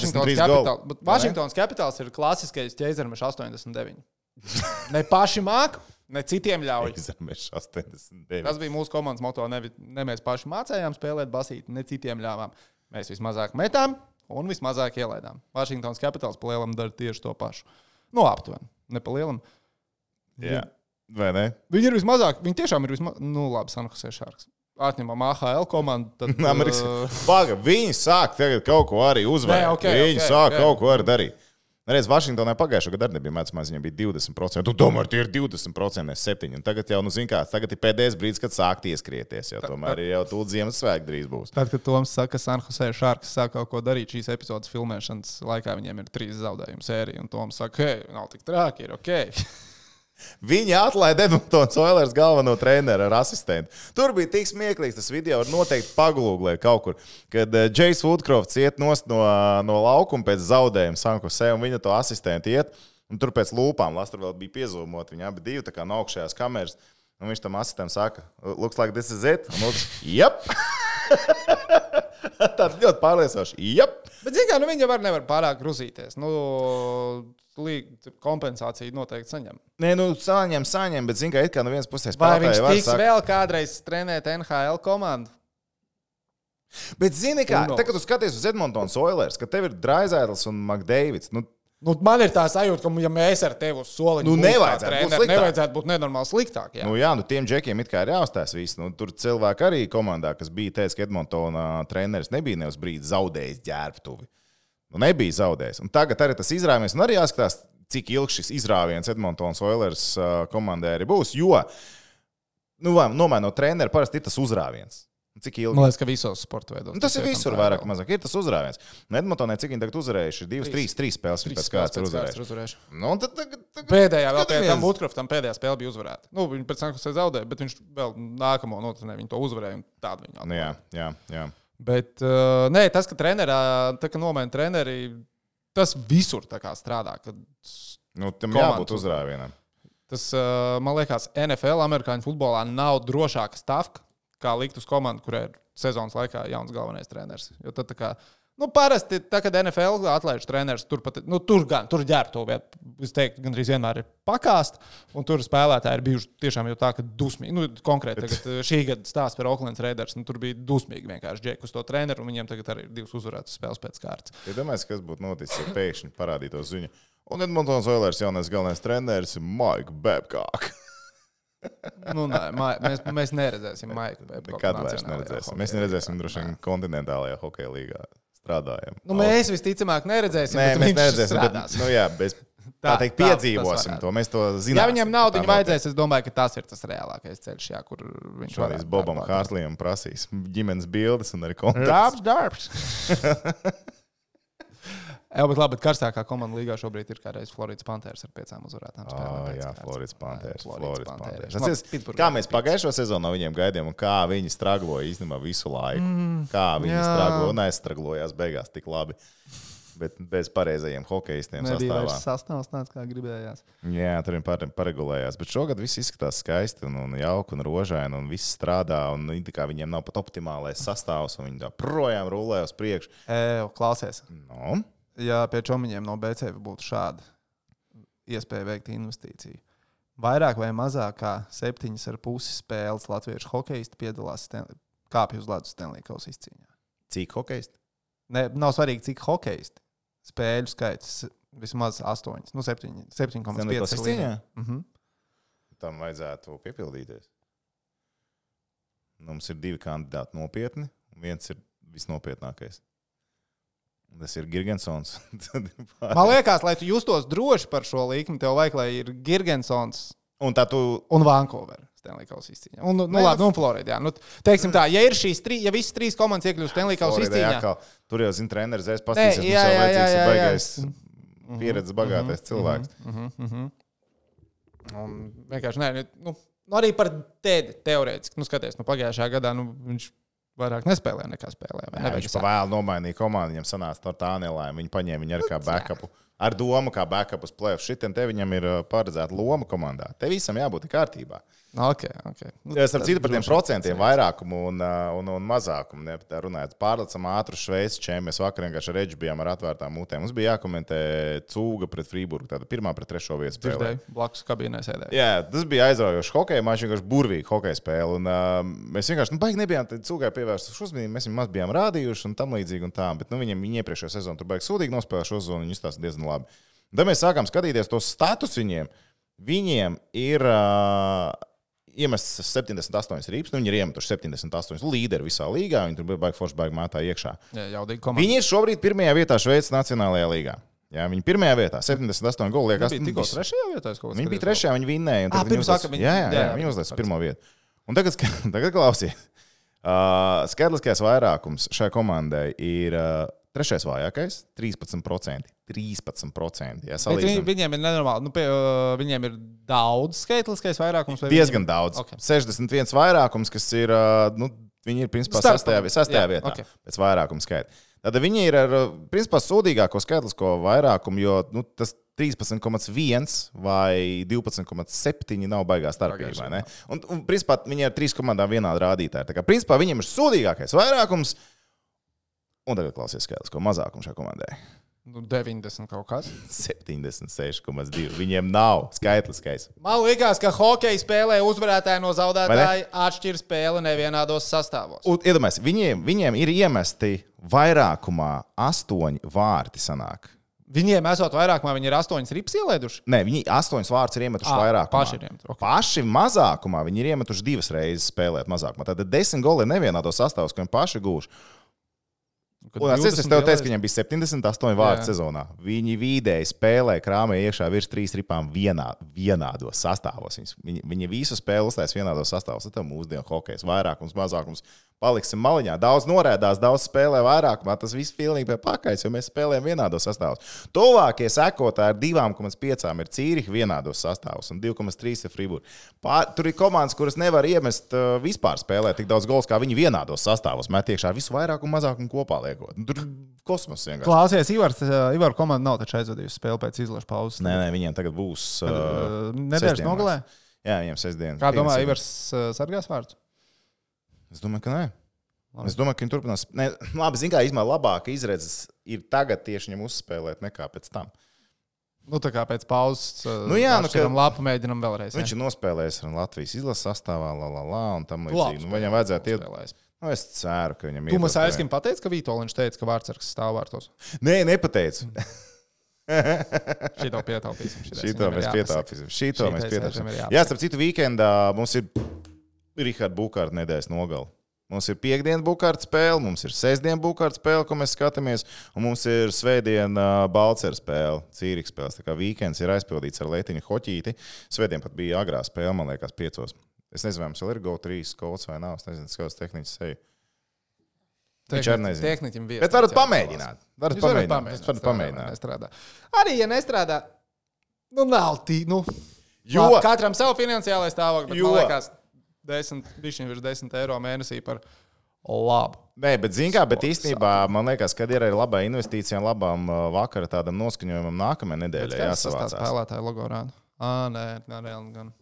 S1: Vašingtonas Capitals ir klasiskais ķēzermešs 89. Ne paši māk, ne citiem ļauj.
S3: Ķēzermešs 89.
S1: Tas bija mūsu komandas moto. Ne mēs paši mācējām spēlēt basīti, ne citiem ļāvām. Mēs vismazāk metām un vismazāk ielaidām. Vašingtonas Capitals pa lielam dara tieši to pašu. Nu, aptuveni. Ne pa lielam.
S3: Jā, vai ne?
S1: Viņi ir vismazāk. Viņi tiešām ir vismazāk. Nu, labi, San Jose Sharks. Atņemam AHL komandu. Tad,
S3: Baga, viņi sāk tagad kaut ko arī uzvarēt. Viņi sāk kaut ko arī darīt. Reiz Vašingtonai pagājušajā gadā arī nebija mēdz, viņam bija 20%. Tu domā, tie ir 20%, ne 7%. Un tagad jau, tagad ir pēdējais brīdis, kad sākt ieskrieties. Tomēr jau tūlīt Ziemassvētki drīz būs.
S1: Tad, kad Toms saka, ka San Jose Sharks sāk kaut ko darīt šīs epizodes filmēšanas laikā, viņiem ir 3 zaudējumu sērija. Un Toms saka, hei, nav tik trāki, ir ok.
S3: Viņi atlaida Edmontons Oilers galveno treneru ar asistentu. Tur bija tik smieklīgs tas video, var noteikti pagūglēt kaut kur, kad Jais Woodcrofts iet nost no laukuma pēc zaudējuma San Jose, un viņa to asistentu iet, un tur pēc lūpām, tur vēl bija piezūmot, viņi abi divi tā kā no augšējās kameras, un viņš tam asistentam saka, looks like this is it, un otrs, jep! Tāds ļoti pārliecinoši, jep!
S1: Bet, zin kā, viņi var nevar pārāk gruzīties. Kompensāciju noteikti saņem.
S3: Nē, saņem, bet zin kā, it kā no vienas puses
S1: vai viņš tiks vēl kādreiz trenēt NHL komandu?
S3: Bet zini kā, kad tu skaties uz Edmontons Oilers, ka tev ir Draisaitls un McDavids,
S1: man ir tā sajūta, ka ja mēs ar tevi uz soliņu nevajadzētu būt nenormāli sliktāk. Jā.
S3: Tiem džekiem it kā ir jāuzstās viss. Tur cilvēki arī komandā, kas bija teicis, ka Edmontona treneris nebija ne uz brīdi zaudējis ģērbtuvi. Nebija zaudējis. Un tagad arī tas izrāviens, un arī jāskatās, cik ilgs šis izrāviens Edmontons Oilers komandai arī būs, jo nomainot treneru parasti ir tas uzrāviens. Cik ilgi?
S1: Man liekas, ka visos sporta veidos.
S3: Tas ir visur vairāk mazāk. Ir tas uzrāviens. Edmontonē, cik viņi tagad uzvarējuši? 2, 3 spēles pēc kāds ir uzvarējuši.
S1: Pēdējā vēl pēc tam Woodcroftam pēdējā spēle bija uzvarēta. Viņi pēc tam, kas zaudēja, bet viņš vēl nākamo notrenē, viņi to uzvarēja un tādu viņi atvarēja.
S3: Jā.
S1: Bet nē, tas, ka ka nomaina treneri, tas visur tā kā strādā.
S3: Tam jābūt uzrāvienam.
S1: Tas, man liekas, NFL, amerikāņu futbolā nav drošāka stafka, kā likt uz komandu, kurai ir sezonas laikā jauns galvenais treneris. Jo tad tā kā, parasti, kad NFL atlaiž treneris, tur ģērbtu vietu, es teiktu, gandrīz vienmēr ir pakāst, un tur spēlētāji ir bijuši tiešām jau tā, ka dusmīgi. Konkrēti, tagad šī gada stāsts par Oaklands Raiders, tur bija dusmīgi vienkārši džeki uz to treneru, un viņiem tagad arī ir 2 uzvarētas spēles pēc kārtas.
S3: Domāju, kas būtu noticis, ja pēkšņi parādītos ziņu. Un Edmontons Oilers jaunais galvenais treneris ir Mike Babcock.
S1: Mēs neredzēsim Maiku Babcocku.
S3: Nekad vairs neredzēsim. Mēs neredzēsim droši vien kontinentālajā hokeja līgā strādājam.
S1: Mēs visticamāk neredzēsim,
S3: bet mēs neredzēsim. Tā teikt, piedzīvosim to. Mēs to zinām.
S1: Ja viņam naudu vajadzēs, es domāju, ka tas ir tas reālākais ceļš, kur viņš
S3: varēs Bobam Hārslījam prasīs ģimenes bildes un arī kontaktus.
S1: Darbs. Bet karstākā komanda līgā šobrīd ir kādreiz Floridas Panthers ar 5 uzvarētām spēlēm.
S3: Jā, Floridas Panthers. Kā mēs pagājušo sezonu no viņiem gaidījām un kā viņi stragloja īstenībā visu laiku. Kā viņi stragloja un aizstraglojās beigās tik labi. Bet bez pareizajiem hokeistiem sastāvā.
S1: Nebija vairs sastāvs tāds, kā gribējās.
S3: Jā, tur viņi paregulējās. Bet šogad viss izskatās skaisti un jauki un rožaini un viss strādā. Un viņiem nav pat optimālais sastāvs un viņi tā projām rulē uz priekšu.
S1: Klausies. Ja pie čomiņiem no BCF būtu šāda iespēja veikt investīciju, vairāk vai mazāk kā 7,5 spēles latviešu hokeisti piedalās kāpju uz ledus Stanley Kausa izcīņā.
S3: Cik hokeisti?
S1: Nav svarīgi, cik hokeisti. Spēļu skaits vismaz 8. 7,5
S3: izcīņā? Tam vajadzētu piepildīties. Mums ir 2 kandidāti nopietni, un viens ir visnopietnākais. Tas ir Girgensons.
S1: Man liekas, lai tu justos droši par šo līkumu, tev vajag, lai ir Girgensons
S3: un tā tu...
S1: un Vancouver. Stanley Kausa izcīņā. Un, labi, un Florida. Jā. Teiksim tā, ja ir šīs ja visas 3 komandas iekļūst Stanley Kausa izcīņā.
S3: Tur jau, treneris aiz pastīsies, mums jau vajadzīgs ir baigais pieredzes bagātais cilvēks.
S1: Un vienkārši, arī par Tedi teorētiski, skaties, pagājušajā gadā, viņš vairāk nespēlēja nekā spēlēja.
S3: Viņš pa vēl nomainīja komandu, viņam sanāca ar Tānelā, viņi paņēma viņu arī kā backupu. Ar domu, kā backup uz play-off. Šitien te viņam ir paredzēta loma komandā. Te visam jābūt kārtībā.
S1: Okay.
S3: Starp citu par tiem procentiem vairākumu un mazākumu. Ne, tā runājot, pārlecam ātru Šveices čēmu. Mēs vakar vienkārši ar Edži bijām ar atvērtām mutēm. Mums bija jākomentē Cūga pret Frīburgu. Tāda 1. pret 3. vietu spēlē.
S1: Blakus kabīnē sēdēja.
S3: Jā, tas bija aizraujošs hokeja mačs, vienkārši burvīgi hokeja spēle. Un mēs vienkārši, baigi nebijām Cūgai pievērstuši uzmanību. Mēs viņam maz bijām rādījuši un tam līdzīgi un tā. Bet viņi iepriekšējā sezonu tur baigi sūdīgi nospēlēja šo sezonu. Viņi izstāsta diezgan labi. Tad mēs sākām skatīties tos status viņiem. Viņiem ir iemests 78 rīps. Viņi ir iemetuši 78 līderi visā līgā. Viņi tur bija baigi forši, baigi mātā iekšā.
S1: Jā,
S3: viņi ir šobrīd 1. vietā Šveices Nacionālajā līgā. Jā, viņi 1. vietā, 78 goli. Liekas,
S1: viņi bija tikko 3. vietā.
S3: Viņi bija 3. viņi vinnēja. Viņi uzlēs 1. vietu. Un tagad klausies. Skaitliskais vairākums šai komandai ir 3. vājākais, 13%. 13%. Jā,
S1: viņiem ir nenormāli. Viņiem ir daudz skaitliskais vairākums.
S3: Diezgan daudz. Okay. 61 vairākums, kas ir, viņi ir principā 6. vietā pēc vairākuma skaita. Tad viņi ir ar, principā, sūdīgāko skaitlisko vairākumu, jo tas 13,1 vai 12,7 nav baigā starpība. Un principā, viņi ar 3 komandām vienādi rādītāji. Tā kā, principā, viņiem ir sūdīgākais vairākums. Un tagad klausies skaitlisko mazākumu šai komandai.
S1: 90 kaut kas.
S3: 76,2. Viņiem nav skaitliskais.
S1: Man liekas, ka hokeja spēlē uzvarētāji no zaudētāji atšķir spēli nevienādos sastāvos.
S3: Iedomājies, viņiem ir iemesti vairākumā 8 vārti sanāk.
S1: Viņiem esot vairākumā, viņi ir 8 rips ielēduši?
S3: Nē, viņi 8 vārtus ir iemetuši vairākumā. Paši mazākumā viņi ir iemetuši 2 reizes spēlēt mazākumā. Tad 10 goli ir nevienādos sastāvos, ko viņi paši gūši. Un es tev teicu, ka viņam bija 78 vārdu sezonā. Viņi vidēji spēlē, krāmē iekšā virs 3 ripām vienādos sastāvos. Viņi visu spēli uztais vienādos sastāvos. Tas ir mūsdienu hokejs. Vairākums, mazākums. Paliksim maliņā. Daudz norēdās, daudz spēlē vairākumā. Tas viss pilnīgi pie pakaļs, jo mēs spēlējam vienādos sastāvos. Tuvākie sekotāji ar 2,5 ir Cīrihi vienādos sastāvos un 2,3 ir Frīburga. Tur ir komandas, kuras nevar iemest vispār spēlēt tik daudz gols, kā viņi vienādos sastāvos. Met iekšā visu vairākumu, mazākumu kopā liekot. Tur kosmos vienkārši.
S1: Klausies, Ivar komanda nav taču aizvadījusi spēli pēc izlašu pauzes.
S3: Nē, viņiem tagad būs
S1: nedēļas nogalē?
S3: Jā, viņiem 6 dienas.
S1: Kā domā, Ivars sargās vārdus?
S3: Es domāju, ka nē. Es domāju, ka viņi turpinās. Labi, zin kā, izmēr labāka izredzes ir tagad tieši viņam uzspēlēt nekā pēc tam.
S1: Tā kā pēc pauzes lapu mēģinam vēlreiz.
S3: Viņš ir nospēlējis ar Latvijas izlases sastāvā, un tam līdzīgi. Viņam vajadzētu iet. Es ceru, ka viņam ir.
S1: Tu mums aizskim pateici, ka Vitoļņš teica, ka Vārtsargs stāv vārtos?
S3: Nē, nepateicu.
S1: Šito pietaupīsim.
S3: Šito mēs pietaupīsim. Jā, starp citu, weekendā mums ir Riharda Bukārta nedēļas nogali. Mums ir piekdiena Bukārta spēle, mums ir sestdiena Bukārta spēle, ko mēs skatāmies, un mums ir svētdiena Balcera spēle, Cīrihi spēles. Tā kā weekends ir aizpildīts ar leitiņu hoķīti. Svētdien pat bija agrā spēle, man liekas, 5. Es nezinu, vai mums vēl ir GO3 kods vai nav. Es nezinu, kāds tehniķis seju. Viņš arī nezinu. Bet varat pamēģināt. Varat pamēģināt.
S1: Arī, ja nestrādā, nav tī. Katram savu finansiālais stāvokli, bet man liekas, 10 eiro mēnesī par labu.
S3: Nē, bet zin kā, bet īstenībā man liekas, kad ir arī labā investīcija un labām vakara tādam noskaņojumam nākamajai nedēļai jāsavācās.
S1: Tā spēlētāja logo rāda. Nē, gan.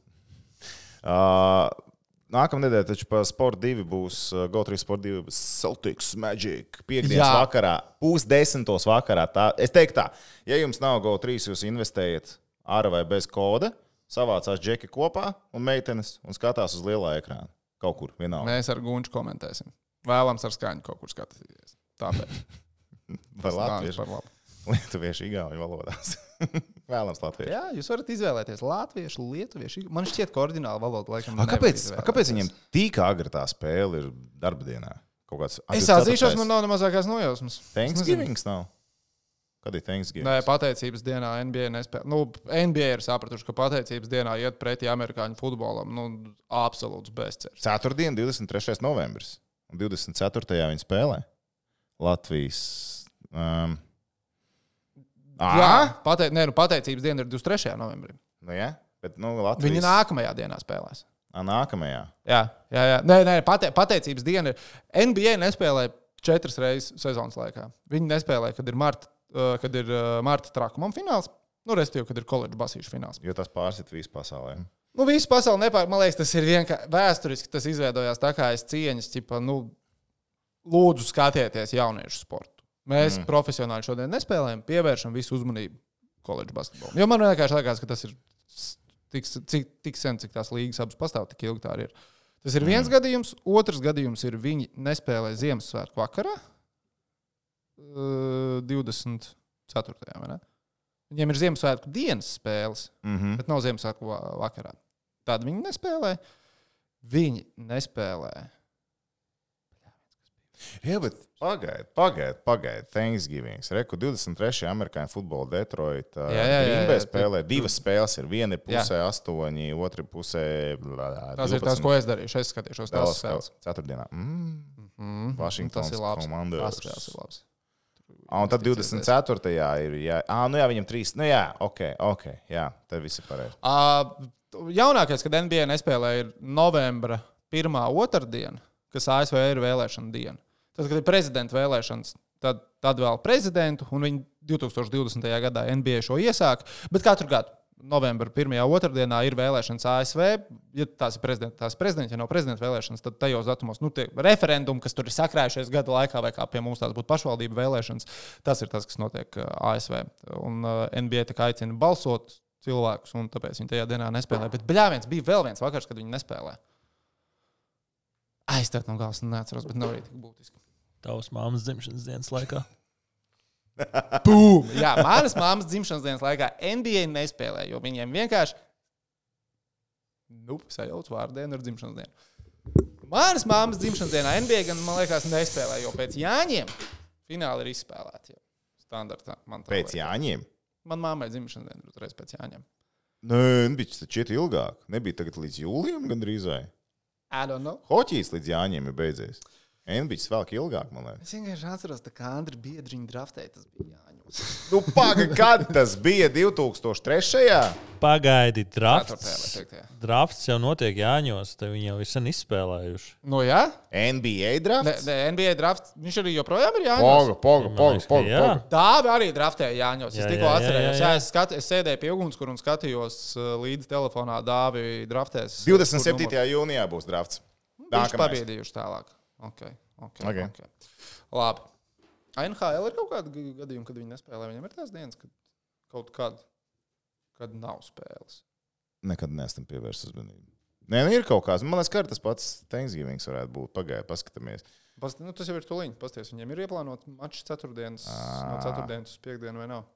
S3: Nākamā nedēļa taču pa Sport 2 būs GO3 Sport 2 Celtics Magic. Piekdienas vakarā, 9:30 vakarā. Es teiktu tā, ja jums nav GO3, jūs investējat ar vai bez koda, savācās džeki kopā un meitenes un skatās uz lielā ekrāna. Kaut kur, vienalga.
S1: Mēs ar Gunču komentēsim. Vēlams ar skaņu kaut kur skatīties. Tāpēc.
S3: Par latviešu. Lietuviešu, igauņu valodās. Vēlams latviešu.
S1: Jā, jūs varat izvēlēties latviešu, lietuviešu. Man šķiet, ka oriģināla valoda laikam
S3: Kāpēc viņiem tik agri tā spēle ir darba dienā? Es
S1: atzīšos, man nav nemazākās nojausmas.
S3: Thanksgivings nav? Kad ir Thanksgiving?
S1: Nē, pateicības dienā NBA nespēlē. NBA ir sapratuši, ka pateicības dienā iet pretī amerikāņu futbolam. Absolūts bezcerības.
S3: Ceturtdien, 23. novembris. Un 24. viņi spēlē Latvijas.
S1: Jā, pateicības diena ir 23. novembrī.
S3: Nu, jā, bet Latvijas.
S1: Viņi nākamajā dienā spēlēs.
S3: Nākamajā.
S1: Jā. Nē, pateicības diena ir. NBA nespēlē 4 reizes sezonas laikā. Viņi nespēlē, kad ir marta trakumam fināls, respektīvi, kad ir koledžu basīšu fināls.
S3: Jo tas pārsit visu pasaulē.
S1: Visu pasauli nepārāk. Man liekas, tas ir vienkārši vēsturiski. Tas izveidojās tā kā aiz cieņas, ķipa, lūdzu skatieties jauniešu sportu. Mēs profesionāli šodien nespēlējam, pievēršam visu uzmanību koledžu basketbolam. Jo man vienkārši liekas, ka tas ir tik sen, cik tās līgas abas pastāv, tik ilgi tā arī ir. Tas ir viens gadījums. Otrs gadījums ir, viņi nespēlē Ziemassvētku vakarā, 24. vai ne? Viņiem ir Ziemassvētku dienas spēles, bet nav Ziemassvētku vakarā. Tad viņi nespēlē. Viņi nespēlē.
S3: Jā, bet pagaid. Thanksgiving. Reku 23. amerikāņu futbola Detroit. Green Bay spēlē. Divas spēles ir. Viena ir pusē 8, otra pusē 12.
S1: Tas ir tas, ko es darīšu. Es skatīšos tās spēles.
S3: Ceturtdienā. Washingtons komanda.
S1: Tas spēles ir labs.
S3: Un tad 24. ir. Jā, viņam 3. Ok. Jā, tad viss ir pareizi.
S1: Jaunākais, kad NBA nespēlē, ir novembra 1. otrdiena, kas ASV ir vēlēšana diena. Tad, kad ir prezidenta vēlēšanas, tad vēl prezidentu, un viņi 2020. gadā NBA šo iesāk. Bet katru gadu novembra 1. otrdienā ir vēlēšanas ASV. Ja tās ir prezidents, ja nav prezidenta vēlēšanas, tad tajos datumos tie referendumi, kas tur ir sakrājušies gada laikā, vai kā pie mums tās būtu pašvaldību vēlēšanas, tas ir tas, kas notiek ASV. Un NBA tā aicina balsot cilvēkus, un tāpēc viņi tajā dienā nespēlē. Bet bļāviens bija vēl viens vakars, kad viņi nespēlē. Aizstāt no galvas neatceros, bet nav arī tik būtiski.
S2: Tavas māmas dzimšanas dienas laikā.
S1: Bum! Jā, manas māmas dzimšanas dienas laikā NBA nespēlē, jo viņiem vienkārši sajauc vārdienu ar dzimšanas dienu. Manas māmas dzimšanas dienā NBA gan, man liekas, nespēlē, jo pēc Jāņiem fināli ir izspēlēti. Standartā.
S3: Pēc Jāņiem?
S1: Man māmai dzimšanas diena ir uzreiz pēc Jāņiem.
S3: Nē, nebija šķiet ilgāk. Nebija tagad līdz jūlijam gandrīz vai?
S1: I don't know.
S3: Hoķijs līdz Jāņiem ir beidzies. NBA vēl ilgāk, man liekas.
S1: Es vienkārši atceros, ka Andri Biedriņu draftēja, tas bija Jāņos.
S3: Kad tas bija 2003.
S2: Pagaidi, drafts jau notiek Jāņos, te viņi jau ir sen izspēlējuši.
S1: Jā?
S3: NBA drafts?
S1: NBA drafts, viņš arī joprojām ir Jāņos.
S3: Poga.
S1: Tā arī draftēja Jāņos. Es tikko atcerējos. Jā, es sēdēju pie ugunskura un skatījos līdz telefonā Dāvi draftēs.
S3: 27. jūnijā būs drafts.
S1: Viņš pabiedījuši tālāk. Okay. Labi. NHL ir kaut kāda gadījuma, kad viņi nespēlē. Viņam ir tās dienas, kad kaut kad nav spēles.
S3: Nekad neesam pievērst uzmanību. Nē, ir kaut kāds. Man liekas, ka tas pats Thanksgiving varētu būt. Pagaidiet, paskatāmies.
S1: Tas jau ir tuliņ. Pasties, viņiem ir ieplānot mačs ceturtdienas, no ceturtdienas uz piekdienu vai nav?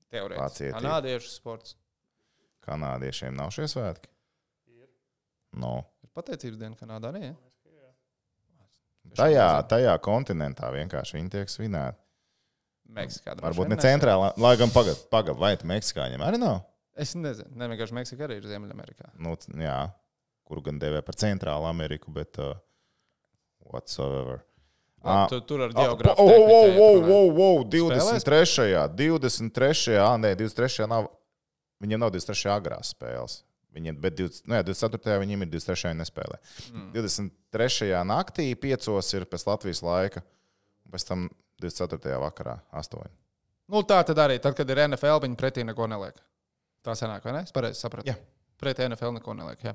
S1: Teorētiski. Kanādiešu sports.
S3: Kanādiešiem nav šie svētki? Ir. No.
S1: Ir pateicības diena Kanādā, ne?
S3: Tajā kontinentā vienkārši viņi tiek svinēti.
S1: Meksikā.
S3: Varbūt ne centrālā, lai gan pagad, vai tu Meksikāņiem arī nav?
S1: Es nezinu. Vienkārši Meksika arī ir Ziemeļamerikā.
S3: Jā, kuru gan devē par centrālu Ameriku, bet whatsoever.
S1: Tur ar geogrāfu.
S3: 23. nav. Viņiem nav 23. agrās spēles. Bet 24. viņiem ir 23. nespēlē. 23. naktī 5. ir pēc Latvijas laika, un pēc tam 24. vakarā 8.
S1: Tā tad arī, tad, kad ir NFL, viņi pretī neko neliek. Tā sanāk, vai ne? Es pareizi sapratu.
S3: Jā.
S1: Pretī NFL neko neliek, jā.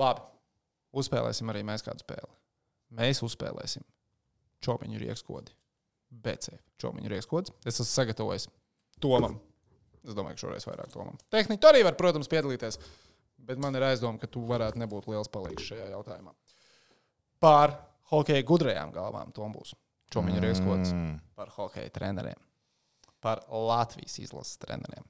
S1: Labi. Uzspēlēsim arī mēs kādu spēli. Mēs uzspēlēsim Čomiņu riekskodi. BC Čomiņu riekskods. Es esmu sagatavojis Tomam. Es domāju, ka šoreiz vairāk Tomam. Tehniķi arī var, protams, piedalīties. Bet man ir aizdoma, ka tu varētu nebūt liels palīgs šajā jautājumā. Par hokeja gudrajām galvām Tom būs Čomiņu riekskods. Par hokeja treneriem. Par Latvijas izlases treneriem.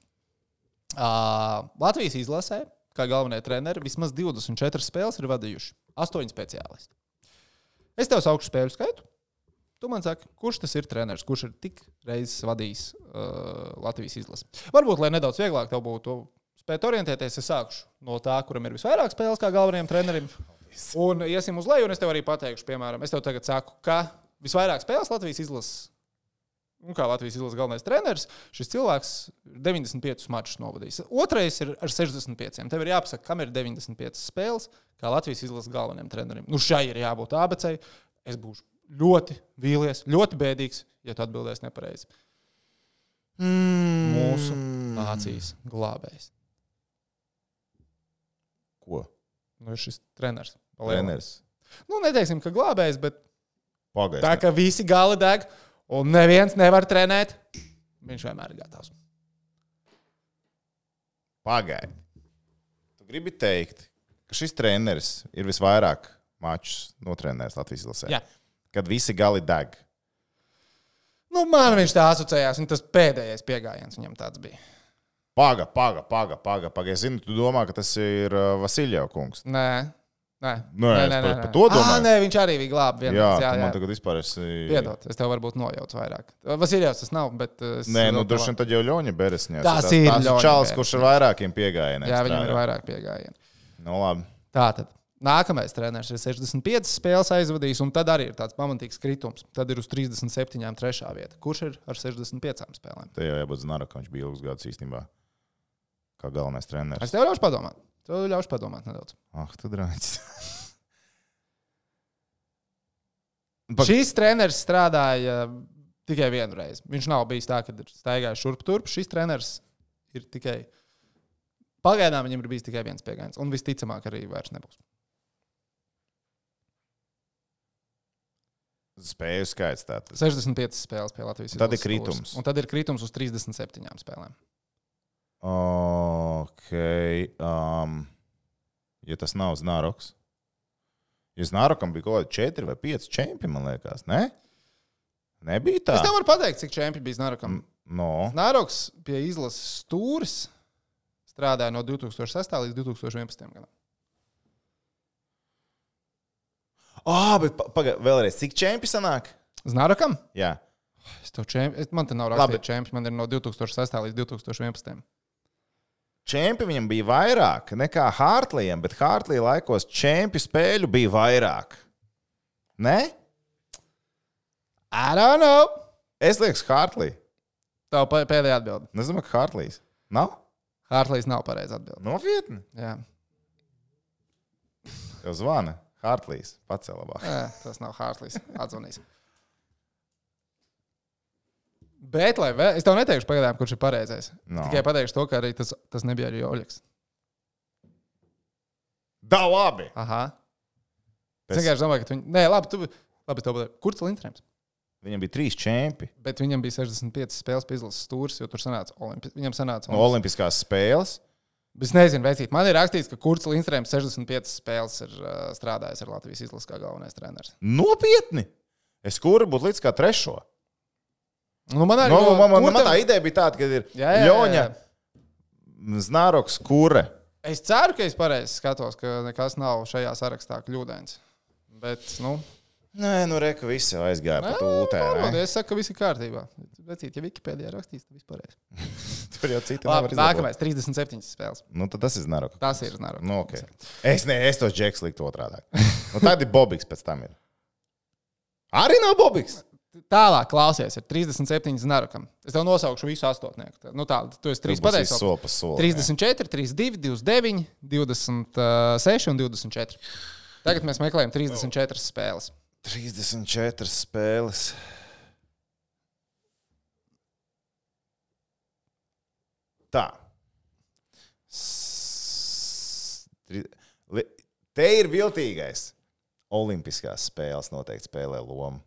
S1: Latvijas izlasē, kā galvenie treneri, vismaz 24 spēles ir vadījuši. 8 speciālisti. Es tev saukšu spēļu skaitu. Tu man saki, kurš tas ir treneris, kurš ir tik reizes vadījis Latvijas izlasi? Varbūt, lai nedaudz vieglāk tev būtu spēt orientēties, es sākšu no tā, kuram ir visvairāk spēles kā galvenajam trenerim. Un iesim uz leju, un es tev arī pateikšu, piemēram, es tev tagad saku, ka visvairāk spēles Latvijas izlases, un kā Latvijas izlases galvenais treneris, šis cilvēks 95 mačus novadījis. Otrais ir ar 65. Tev ir jāpasaka, kam ir 95 spēles, kā Latvijas izlases galvenajam trenerim. Nu, šai ir jābūt ABC. Es būšu ļoti vīlies, ļoti bēdīgs, ja tu atbildēsi nepareizi. Mūsu nācijas glābējs.
S3: Ko?
S1: Nu, ir šis treneris.
S3: Treneris.
S1: Nu, neteiksim, ka glābējs, bet
S3: Pagaist.
S1: tā, ka visi gali deg un neviens nevar trenēt, viņš vienmēr ir gatavs.
S3: Pagaidi. Tu gribi teikt, ka šis treneris ir visvairāk mačus notrenējis Latvijas izlasē?
S1: Jā.
S3: Kad visi gali deg.
S1: Nu, man viņš tā asociējās, un tas pēdējais piegājiens viņam tāds bija.
S3: Paga. Es zinu, tu domā, ka tas ir Vasiljeva kungs.
S1: Nē.
S3: Par to domāju.
S1: Nē, viņš arī bija glābs.
S3: Jā, man tagad vispār esi...
S1: Piedod, es tev varbūt nojaucu vairāk. Vasiljevs tas nav, bet...
S3: Nē, nu droši vien tad jau Ļoņa Beresņās.
S1: Tas ir Ļoņa
S3: Čāls, kurš ar vairākiem piegājieniem.
S1: Jā, viņam ir vairāk piegājieni.
S3: Nu, labi.
S1: Tātad. Nākamais treneris ir 65 spēles aizvadījis, un tad arī ir tāds pamatīgs kritums. Tad ir uz 37. trešā vieta. Kurš ir ar 65 spēlēm?
S3: Te jau jābūt Znarakam, viņš bija ilgus gadus īstenībā. Kā galvenais treneris.
S1: Es tev ļaušu padomāt. Tev ļaušu padomāt nedaudz.
S3: Tu drāņķis.
S1: Šis treneris strādāja tikai vienu reizi. Viņš nav bijis tā, ka ir staigājis šurp turp. Šis treneris ir tikai... Pagaidām viņam ir bijis tikai viens piegājiens. Un visticamāk arī vairs nebūs.
S3: Spēju skaits tātad.
S1: 65 spēles pie Latvijas izlases.
S3: Tad ir kritums.
S1: Un tad ir kritums uz 37 spēlēm.
S3: Ok. Ja tas nav Znaroks. Ja Znarokam bija kaut kādi 4 vai 5 čempi, man liekas, ne? Nebija tā?
S1: Es tev varu pateikt, cik čempi bija Znarokam.
S3: No.
S1: Znaroks pie izlases stūris strādāja no 2006. līdz 2011. gadam.
S3: Bet pagaid, vēlreiz, cik čempi sanāk?
S1: Znarokam?
S3: Jā.
S1: Man te nav rakstīts čempi, man ir no 2006. līdz 2011.
S3: Čempi viņam bija vairāk nekā Hartleyam, bet Hartley laikos čempi spēļu bija vairāk. Ne?
S1: I don't know.
S3: Es liekas Hartley.
S1: Tev pēdējā atbilde.
S3: Es domāju, ka Hartleys. Nav?
S1: Hartleys nav pareiza atbilde.
S3: Nopietni?
S1: Jā.
S3: Tev zvana. Hartleys. Pats labāk.
S1: Tas nav Hartleys. Atzvanīs. Bet, es tev neteikšu pagaidām, kurš ir pareizais.
S3: No.
S1: Tikai pateikšu to, ka arī tas nebija arī Oļegs.
S3: Da, labi!
S1: Aha. Es vienkārši domāju, ka viņi... Nē, labi, tev pateikšu. Kurš Lindstrēms?
S3: Viņam bija 3 čempi.
S1: Bet viņam bija 65 spēles pie izlases stūris, jo tur sanāca viņam sanāca...
S3: Olimpiskās spēles.
S1: Es nezinu, veicīt. Man ir rakstīts, ka Kurts Lindstrēms 65 spēles ir strādājis ar Latvijas izlases kā galvenais treneris.
S3: Nopietni? Es kuru būtu līdz kā 3.
S1: Nu, man arī
S3: man tā ideja bija tāda, ka ir Ļoņa, Znaroks, Kure.
S1: Es ceru, ka es pareizi skatos, ka nekas nav šajā sarakstā kļūdains. Bet,
S3: Nē, reku visi aizgāja pa tūtē.
S1: Es saku, ka viss ir kārtībā. Vecīt, ja Wikipēdijā rakstīs, tad viss pareizi.
S3: Tur jau citi
S1: labi, nākamais, 37 spēles.
S3: Tad tas ir Znaroks.
S1: Tas ir Znaroks.
S3: Okay. Es tos džeks liktu otrādāk. Tad ir Bobiks pēc tam ir. Arī nav Bobiks.
S1: Tālāk, klausies, ir 37 Znarokam. Es tev nosaukšu visu astotnieku. Tu esi 3 pateicis. 34, 32, 29, 26 un 24. Tagad mēs meklējam 34 spēles.
S3: 34 spēles. Tā. Te ir viltīgais. Olimpiskās spēles noteikti spēlē lomu.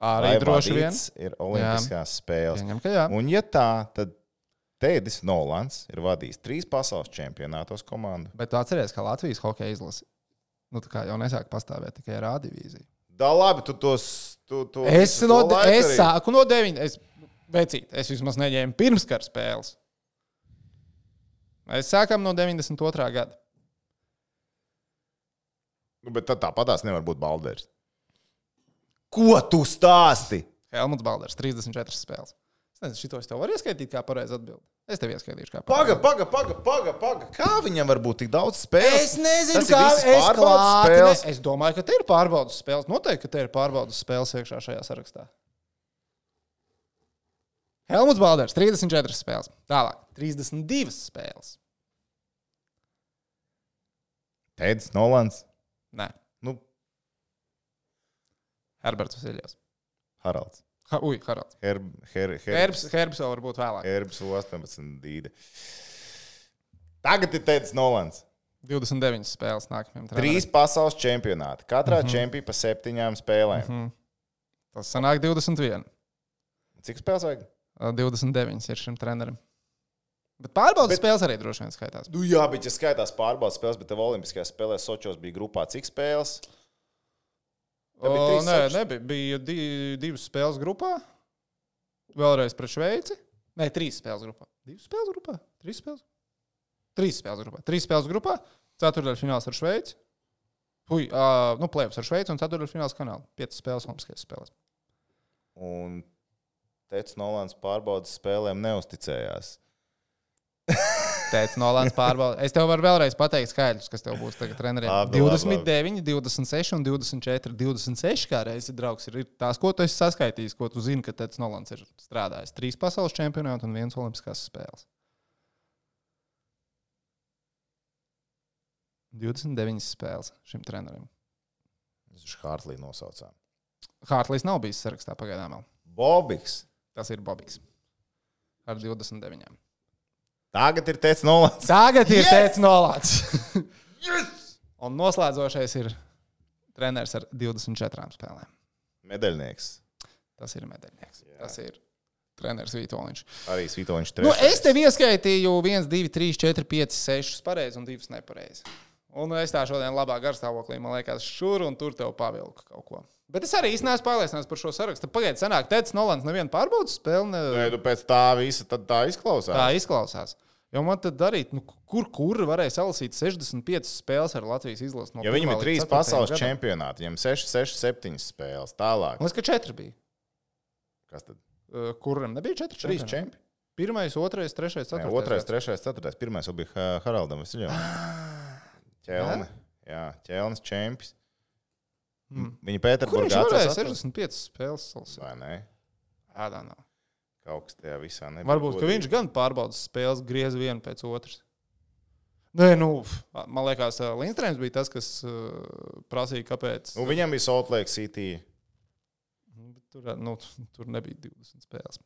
S1: Arī droši vien.
S3: Ir olimpiskās spēles.
S1: Pieņem, ka jā.
S3: Un ja tā, tad Tēdis Nolans ir vadījis 3 pasaules čempionātos komandu.
S1: Bet tu atceries, ka Latvijas hokeja izlase jau nesāk pastāvēt tikai ar A divīziju.
S3: Da labi, tu tos...
S1: Es sāku no 9. Es vismaz neņēmu pirmskara spēles. Mēs sākam no 92. gada.
S3: Bet tad tāpatās nevar būt Balders. Ko tu stāsti?
S1: Helmuts Balders, 34 spēles. Es nezinu, šito es tev varu ieskaitīt kā pareizi atbildi. Es tev ieskaitīšu kā pareizi.
S3: Paga. Kā viņam var būt tik daudz spēles?
S1: Es nezinu,
S3: kā es
S1: klāti. Es domāju, ka te ir pārbaudas spēles. Noteikti, ka te ir pārbaudas spēles iekšā šajā sarakstā. Helmuts Balders, 34 spēles. Tālāk, 32 spēles.
S3: Tēds Nolans.
S1: Nē.
S3: Nu,
S1: Herberts Vasiljovs.
S3: Haralds.
S1: Haralds. Herbs vēl varbūt vēlāk.
S3: Herbs 18 dīde. Tagad ir Tēds Nolans.
S1: 29 spēles nākamajam
S3: trenerim. 3 pasaules čempionāti. Katrā čempionā pa 7 spēlēm.
S1: Tas sanāk 21.
S3: Cik spēles vajag?
S1: 29 ir šim trenerim. Bet pārbaudas spēles arī droši vien skaitās.
S3: Nu jā, bet ja skaitās pārbaudas spēles, bet tev olimpiskajās spēlēs Sočos bija grupā cik spēles?
S1: Nebija. Bija 2 spēles grupā. Vēlreiz pret Šveici. Nē, 3 spēles grupā. 2 spēles grupā? 3 spēles? 3 spēles grupā. 3 spēles grupā. Ceturtdaļfināls ar Šveici. Play-offs ar Šveici un ceturtdaļfināls Kanādu. 5 spēles olimpiskajās spēlēs.
S3: Un Tēds Nolans pārbaudas spēlēm neusticējās.
S1: Tēds Nolans pārbauda. Es tev varu vēlreiz pateikt skaidrs, kas tev būs tagad treneriem. 29, 26 un 24. 26 kā reizi draugs ir tās, ko tu esi saskaitījis, ko tu zini, ka Tēds Nolans ir strādājis. 3 pasaules čempionāti un 1 olimpiskās spēles. 29 spēles šim trenerim.
S3: Viņš Hārtlī nosaucām.
S1: Hārtlīs nav bijis sarakstā pagaidām vēl.
S3: Bobiks.
S1: Tas ir Bobiks. Ar 29.
S3: Tagad ir Tēds Nolans.
S1: Tēds Nolans. Un noslēdzošais ir treneris ar 24 spēlēm.
S3: Medaļnieks.
S1: Tas ir medaļnieks. Jā. Tas ir treneris Vitoļņš.
S3: Arī Vitoļņš 3.
S1: Es tev ieskaitīju 1, 2, 3, 4, 5, 6 pareizi un 2 nepareizi. Un es tā šodien labā garstāvoklī, man liekas, šur un tur tev pavilku kaut ko. Bet es arī īsti neesmu pārliecināts par šo sarakstu. Pagaid, sanāk, Tēds Nolans nevienu pārbaudas spēli.
S3: Nē, tu pēc tā visa tad tā izklausās.
S1: Tā izklausās. Jo man tad darīt, kur varēja salasīt 65 spēles ar Latvijas izlasi.
S3: Ja viņam ir 3 pasaules čempionāti, viņam 6, 7 spēles. Tālāk.
S1: Man liekas, ka 4 bija.
S3: Kas tad?
S1: Kuram nebija 4
S3: čempionāti? 3 čempi.
S1: 1, 2, 3, 4.
S3: 2, 3, 4. Pirmais jau bija Haraldam Vasiljovam. Ķelne. Jā, Ķelnes čempis. Viņa Pēterburgā
S1: atcerās. Kur viņš varēja 65 spēles salasīt?
S3: Vai ne?
S1: Ādā nav.
S3: Kaut kas tajā visā nebija.
S1: Varbūt, ka viņš gan pārbaudas spēles griez vienu pēc otras. Nē, man liekas, Lindstrēms bija tas, kas prasīja, kāpēc.
S3: Viņam bija Salt Lake City.
S1: Tur nebija 20 spēles.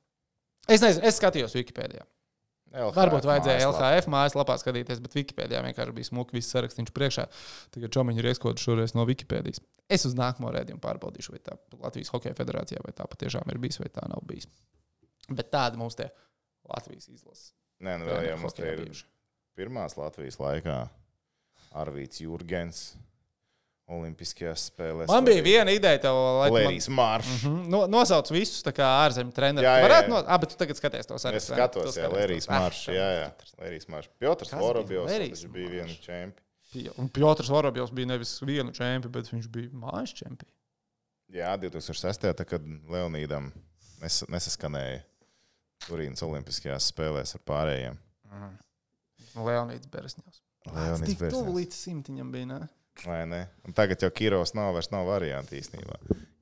S1: Es nezinu, es skatījos Wikipēdijā. Varbūt vajadzēja LHF mājaslapā skatīties, bet Wikipēdijā vienkārši bija smuki viss sarakstīns priekšā. Tagad Čomiņu ir ieskodu šoreiz no Wikipēdijas. Es uz nākamo rēdījumu pārbaudīšu, vai tā Latvijas Hokeja federācijā, vai tā patiešām ir bijis, vai tā nav bijis. Bet tāda mums te Latvijas izlase.
S3: Nē, vēl jau mums te ir pirmās Latvijas laikā Arvīts Jurgens olimpiskajās spēlēs.
S1: Man bija viena ideja tev, lai
S3: Lērijas Maršs.
S1: Nosauc visus tā kā ārzemju trenerus. Varētu bet tu tagad skaties to sarakstu.
S3: Es skatos, Lērijas Maršs. Jā. Lērijas Maršs. Piotrs Vorobjovs, tas bija viena čempi.
S1: Un Piotrs Vorobjovs bija nevis vienu čempi, bet viņš bija mājas čempi.
S3: Jā, 2006. kad Leonīdam nesaskanēja Turīnas olimpiskajās spēlēs ar pārējiem.
S1: Leonīds Beresņevs. Tik tuvu līdz 100 bija, ne?
S3: Vai ne? Un tagad jau Kirovs vairs nav varianti īstenībā.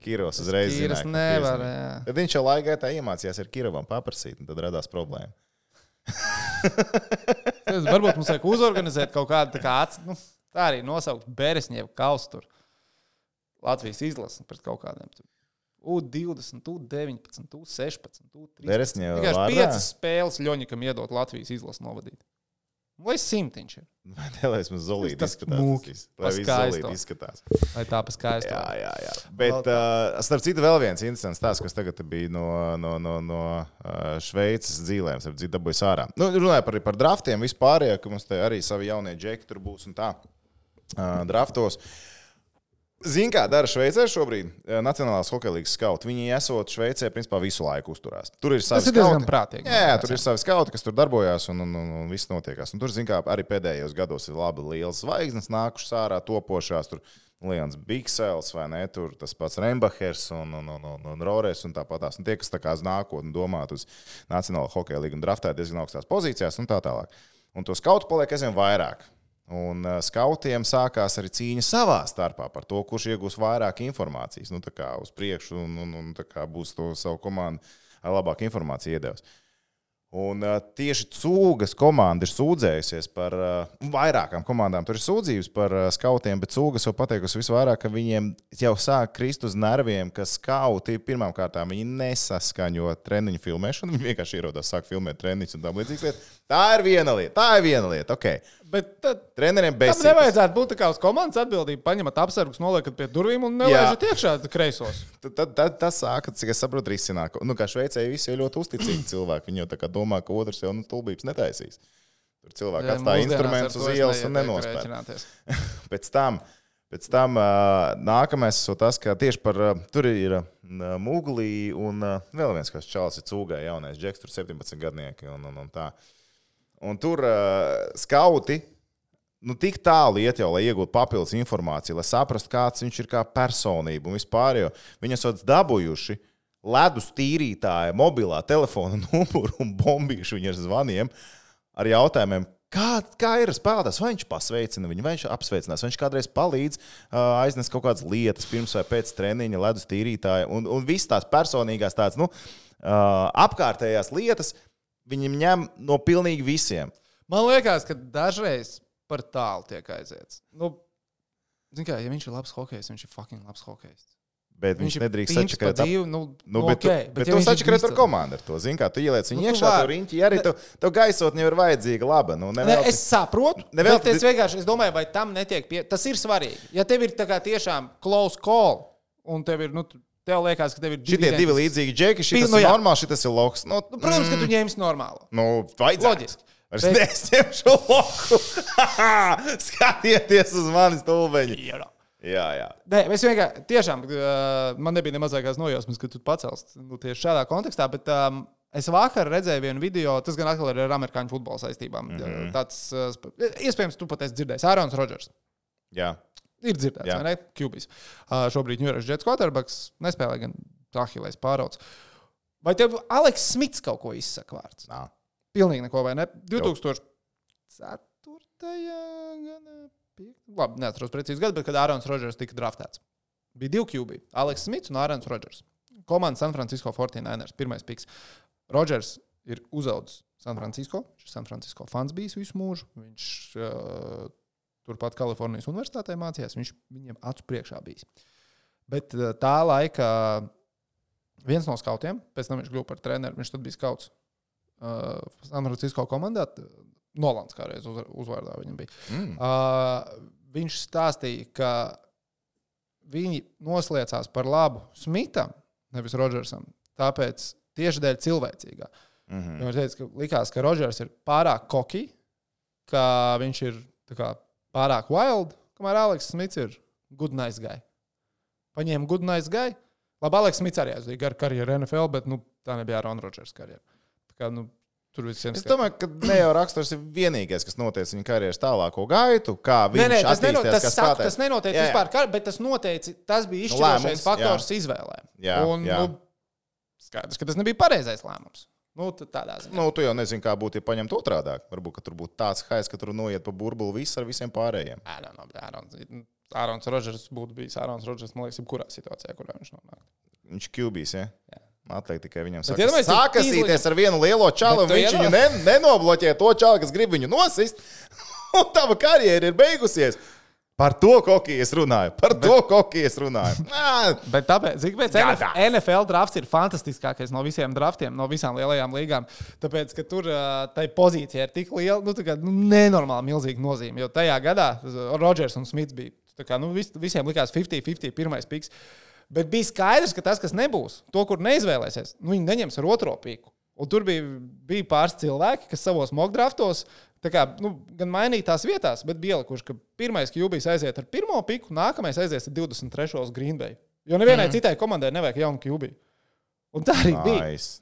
S3: Kirovs uzreiz zināja, ka
S1: nevar,
S3: tad viņš jau laikā iemācījās ar Kirovam paprasīt, un tad radās problēma.
S1: Varbūt mums vajag uzorganizēt kaut kādu tā arī nosaukt Beresņevu kausu tur. Latvijas izlasi pret kaut kādiem tur. U20, U19, U16, U13.
S3: Beresņeva
S1: var. 5 spēles Ļoņikam iedot Latvijas izlasi novadīt. Lai 100 viņš ir.
S3: Lai mums Zolīti izskatās. Lai viss Zolīti izskatās.
S1: Lai tā paskaisto.
S3: Jā. Bet, starp citu, vēl viens interesants stāsts, kas tagad bija no Šveices dzīlēm, starp citu, dabūjas ārā. Runāja par draftiem vispārējā, ka mums te arī savi jaunie džeki tur būs un tā draftos. Zini, kā dara Šveicē šobrīd? Nacionālās hokeja līgas skauti. Viņi esot Šveicē, principā, visu laiku uzturās. Tur ir savi skauti. Tas ir diezgan prātīgi. Jā, tur ir savi skauti, kas tur darbojās un viss notiekās. Un tur, zini, kā arī pēdējos gados ir labi lielas zvaigznes nākušas ārā, topošās. Tur Lions Biksels, vai ne, tur tas pats Rembachers un Rores un tāpatās. Un tie, kas tā kā uz nākotni domāt uz Nacionālo hokeja līgu un draftē diezgan augstās pozīcijās un tā tālāk. Un to skautu paliek aizvien vairāk. Un skautiem sākās arī cīņa savā starpā par to, kurš iegūs vairāk informācijas. Nu, tā kā uz priekšu un tā kā būs to savu komandu ar labāku informāciju iedevis. Un tieši Cūgas komanda ir sūdzējusies par vairākām komandām. Tur ir sūdzības par skautiem, bet Cūgas jau pateikusi visvairāk, ka viņiem jau sāk krist uz nerviem, ka skauti pirmām kārtām viņi nesaskaņo treniņu filmēšanu. Viņi vienkārši ierodās, sāk filmēt treniņus un tā līdzīgas lietas. Tā ir viena lieta. Okay.
S1: Bet tad
S3: treneriem besītas.
S1: Tam nevajadzētu būt tā kā uz komandas atbildību. Paņemat apsargus, noliekat pie durvīm un nelaižat iekšā kreisos.
S3: Tad tas sāka, cik es saprotu, risināt. Nu, kā šveicēji visi ir ļoti uzticīgi cilvēki. Viņi jau tā kā domā, ka otrs jau stulbības netaisīs. Tur cilvēki atstāja instrumentus uz ielas un nenospēr. Pēc tam nākamais ir tas, ka tieši par tur ir Muglī un vēl viens, kas čalis ir Cūgai jaunais džeks, tur 17 gadnieki un tā. Un tur skauti tik tālu iet jau, lai iegūtu papildus informāciju, lai saprastu, kāds viņš ir kā personība un vispār, jo viņi esot dabūjuši ledus tīrītāja mobilā telefona numuru un bombīšu viņu ar zvaniem ar jautājumiem, kā ir spēlētājs, vai viņš pasveicina viņu, vai viņš apsveicinās, vai viņš kādreiz palīdz aiznes kaut kādas lietas pirms vai pēc treniņa ledus tīrītāja un viss tās personīgās tādas, apkārtējās lietas viņam ņem no pilnīgi visiem.
S1: Man liekas, ka dažreiz par tālu tiek aiziets. Zin kā, ja viņš ir labs hokejs, viņš ir fucking labs hokejs.
S3: Bet viņš nedrīkst sačakarēt. Bet tu sačakarēt ar komandu ar to. Zin kā, tu ieliec viņu iekšā, tu riņķi, arī tev gaisotni jau ir vajadzīga laba.
S1: Es saprotu, bet es domāju, vai tam netiek tas ir svarīgi. Ja tev ir tā kā tiešām close call, un tev ir, tev liekas, ka tev ir
S3: šitie divi līdzīgi džeki, šitas ir normāli, šitas ir loks.
S1: Protams, ka tu ņemsi normālu.
S3: Vajadzētu.
S1: Loģiski.
S3: Es ņemšu loku. Skatieties uz mani stulbeņi. Jā.
S1: Nē, es vienkārši, tiešām, man nebija nemazākās nojausmas, ka tu pacels tieši šādā kontekstā, bet es vakar redzēju vienu video, tas gan atkal ir ar amerikāņu futbola saistībām. Tāds, iespējams, tu pat esi dzirdējis, Ārons Rodžers.
S3: Jā.
S1: Ir dzirdēts, vai ne? QBs. Šobrīd New York Jets quarterbacks nespēlē gan Ahilejs pārauds. Vai tev Aleks Smits kaut ko izsaka vārds?
S3: Nā.
S1: Pilnīgi neko, vai ne? 2004. gada. Labi, neatceros precīzi gadu, bet kad Ārons Rodžers tika draftēts. Bija 2 QB. Aleks Smits un Ārons Rodžers. Komanda San Francisco 49ers. Pirmais piks. Rodžers ir uzaudzis San Francisco. Šis San Francisco fans bijis visu mūžu. Viņš turpat Kalifornijas universitātē mācījās. Viņš viņiem acu priekšā bijis. Bet tā laika viens no skautiem, pēc tam viņš kļuva par treneru, viņš tad bija skauts San Francisco komandā. Nolans kādreiz uzvārdā viņam bija. Viņš stāstīja, ka viņi nosliecās par labu Smitam, nevis Rodžersam, tāpēc tieši dēļ cilvēcīgā. Viņš teica, ka likās, ka Rodžers ir pārāk koki, ka viņš ir tā kā pārāk wild, kamēr Aleks Smits ir good nice guy. Paņēma good nice guy. Labi, Aleks Smits arī aizvīja garu karjeru NFL, bet tā nebija Aaron Rodgers karjera. Tā kā, tur visiem
S3: es domāju, ka ne jau raksturs ir vienīgais, kas noteica viņa karjeras tālāko gaitu, kā viņš attīstījās kā spēlētājs.
S1: Tas nenoteica vispār, bet tas bija izšķirošais faktors izvēlē. Skaidrs, ka tas nebija pareizais lēmums. Tādā ziņā.
S3: Tu jau nezini, kā būtu, ja paņemt otrādāk. Varbūt, ka tur būtu tāds haiz, ka tur noiet pa burbuli viss ar visiem pārējiem.
S1: Ārons Rodžers būtu bijis Ārons Rodžers, man liekas, jebkurā situācijā, kurā viņš nonāk.
S3: Viņš QBs, ja? Jā. Atliek tikai viņam sākasīties ar vienu lielo čalu, un viņš viņu nenobloķē to čalu, kas grib viņu nosist, un tava karjera ir beigusies. Par to kokī es runāju.
S1: Bet tāpēc NFL drafts ir fantastiskākais no visiem draftiem, no visām lielajām līgām. Tāpēc, ka tur tai pozīcija ir tik liela, nenormāli milzīga nozīme. Jo tajā gadā Rodžers un Smits bija, visiem likās 50-50 pirmais piks. Bet bija skaidrs, ka tas, kas nebūs, to, kur neizvēlēsies, viņi neņems ar otro piku. Un tur bija pāris cilvēki, kas savos mock draftos gan mainīja tās vietās, bet bija ielikuši, ka pirmais QBs aiziet ar pirmo piku, nākamais aizies ar 23. uz Green Bay. Jo nevienai citai komandai nevajag jaunu QB. Un tā arī bija.
S3: Nice.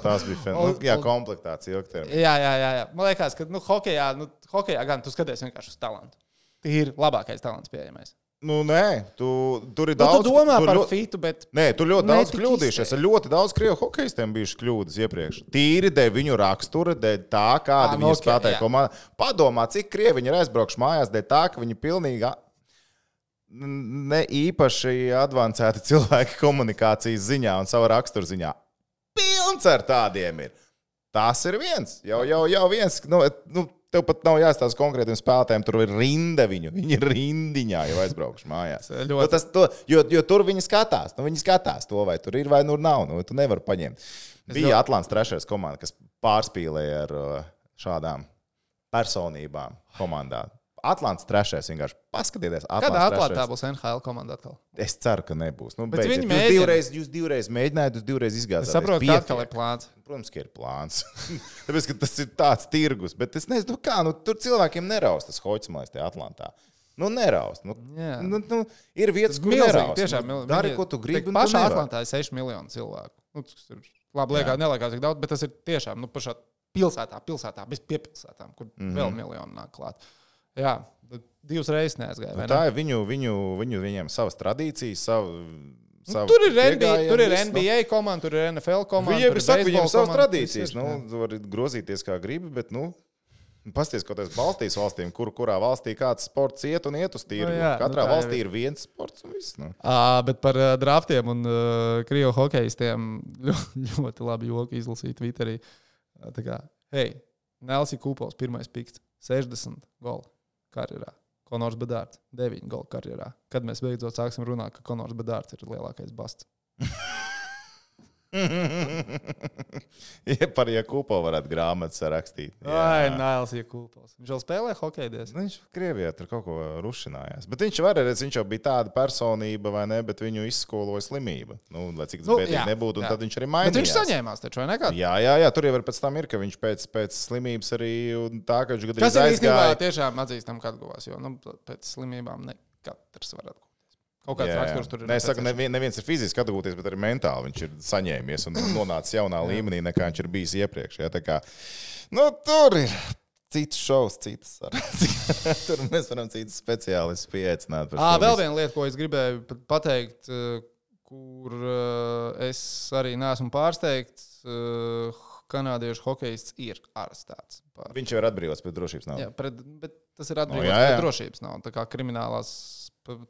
S3: Tas bija komplektācija ilgtermiņā.
S1: Jā. Man liekas, ka hokejā gan tu skaties vienkārši uz talantu. Ir labākais talants pieejamais.
S3: Nu, nē, tur ir
S1: Nu,
S3: daudz.
S1: tu domā par fitu, bet...
S3: Nē, tur ļoti daudz
S1: tik
S3: kļūdījušies. Ir ļoti daudz krievu hokejistiem bijušas kļūdas iepriekš. Tīri dēļ viņu rakstura, dēļ tā, kāda viņi spēlēja komandā. Padomā, cik krievi viņi ir aizbraukuši mājās, dēļ tā, ka viņi pilnīgi ne īpaši advancēti cilvēki komunikācijas ziņā un savu raksturu ziņā. Pilns ar tādiem ir. Tas ir viens. Jau viens. Tev pat nav jāstāsta konkrētiem spēlētājiem, tur ir rinda viņu. Viņi ir rindiņā jau aizbraukuši mājās. Jo tur viņi skatās. Viņi skatās to, vai tur ir vai nu nav. Tu nevari paņemt. Bija Atlants trešais komanda, kas pārspīlēja ar šādām personībām komandā. Atlants trešais vienkārši paskatieties.
S1: Kādā Atlantā būs NHL komanda atkal?
S3: Es ceru, ka nebūs. Jūs divreiz mēģinājāt, jūs divreiz izgāzāt.
S1: Es saprotu, ka atkal ir plāns.
S3: Protams, ka ir plāns. Tāpēc, ka tas ir tāds tirgus. Bet es nezinu, kā. Tur cilvēkiem neraust tas hoķismais tajā Atlantā. Neraust. Ir vietas, kur neraust.
S1: Tiešām,
S3: dari, ko tu gribi.
S1: Pašā Atlantā ir 6 miljoni cilvēku. Tas ir labi, neliekas tik daudz, bet tas ir tiešām pašā pilsētā, bez piepilsētām, kur vēl miljoni nāk klāt. Jā, 2 reizes neaizgāja.
S3: Tā ir viņiem savas tradīcijas,
S1: tur ir NBA komanda, tur ir NFL komanda.
S3: Viņiem ir savas tradīcijas. Var grozīties kā gribi, bet, pasties kaut kādas Baltijas valstīm, kurā valstī kāds sports iet uz tirgu. Katrā valstī ir viens sports un viss.
S1: Bet par draftiem un krievu hokejistiem ļoti labi joki izlasīt Twitterī. Tā kā, Nelsija Kūpols, pirmais pikts, 60 goli karjerā. Konors Bedārds, 9 goli karjerā. Kad mēs beidzot sāksim runāt, ka Konors Bedārds ir lielākais basts?
S3: Par Jakūpo varētu grāmatas rakstīt.
S1: Nails Jakūpos. Viņš vēl spēlē hokeju diezgan.
S3: Viņš Krievijā tur kaut ko rušinājās. Bet viņš jau bija tāda personība, vai ne, bet viņu izskoloja slimība. Lai cik tas bēdīgi nebūtu, un tad viņš arī mainījās.
S1: Bet viņš saņēmās taču, vai nekad?
S3: Jā, tur jau ir pēc tam ir, ka viņš pēc slimības arī tā, ka viņš gadījumā
S1: aizgāja. Tas ir īstenībā tiešām atzīstam, ka atguvās, jo pēc slimībām ne katrs var atgūt. Kaut kāds raksturs tur ir.
S3: Es saku, neviens ir fiziski atgūties, bet arī mentāli viņš ir saņēmies un nonācis jaunā līmenī, nekā viņš ir bijis iepriekš. Tā kā, tur ir cits šovs, citas sarunas. Tur mēs varam citas speciālistus pieaicināt.
S1: Vēl viena lieta, ko es gribēju pateikt, kur es arī neesmu pārsteigts, kanādiešu hokejists ir arestēts.
S3: Viņš jau ir atbrīvots pēc drošības nav.
S1: Jā, bet tas ir atbrīvots pēc drošības nav. Tā kā kriminālās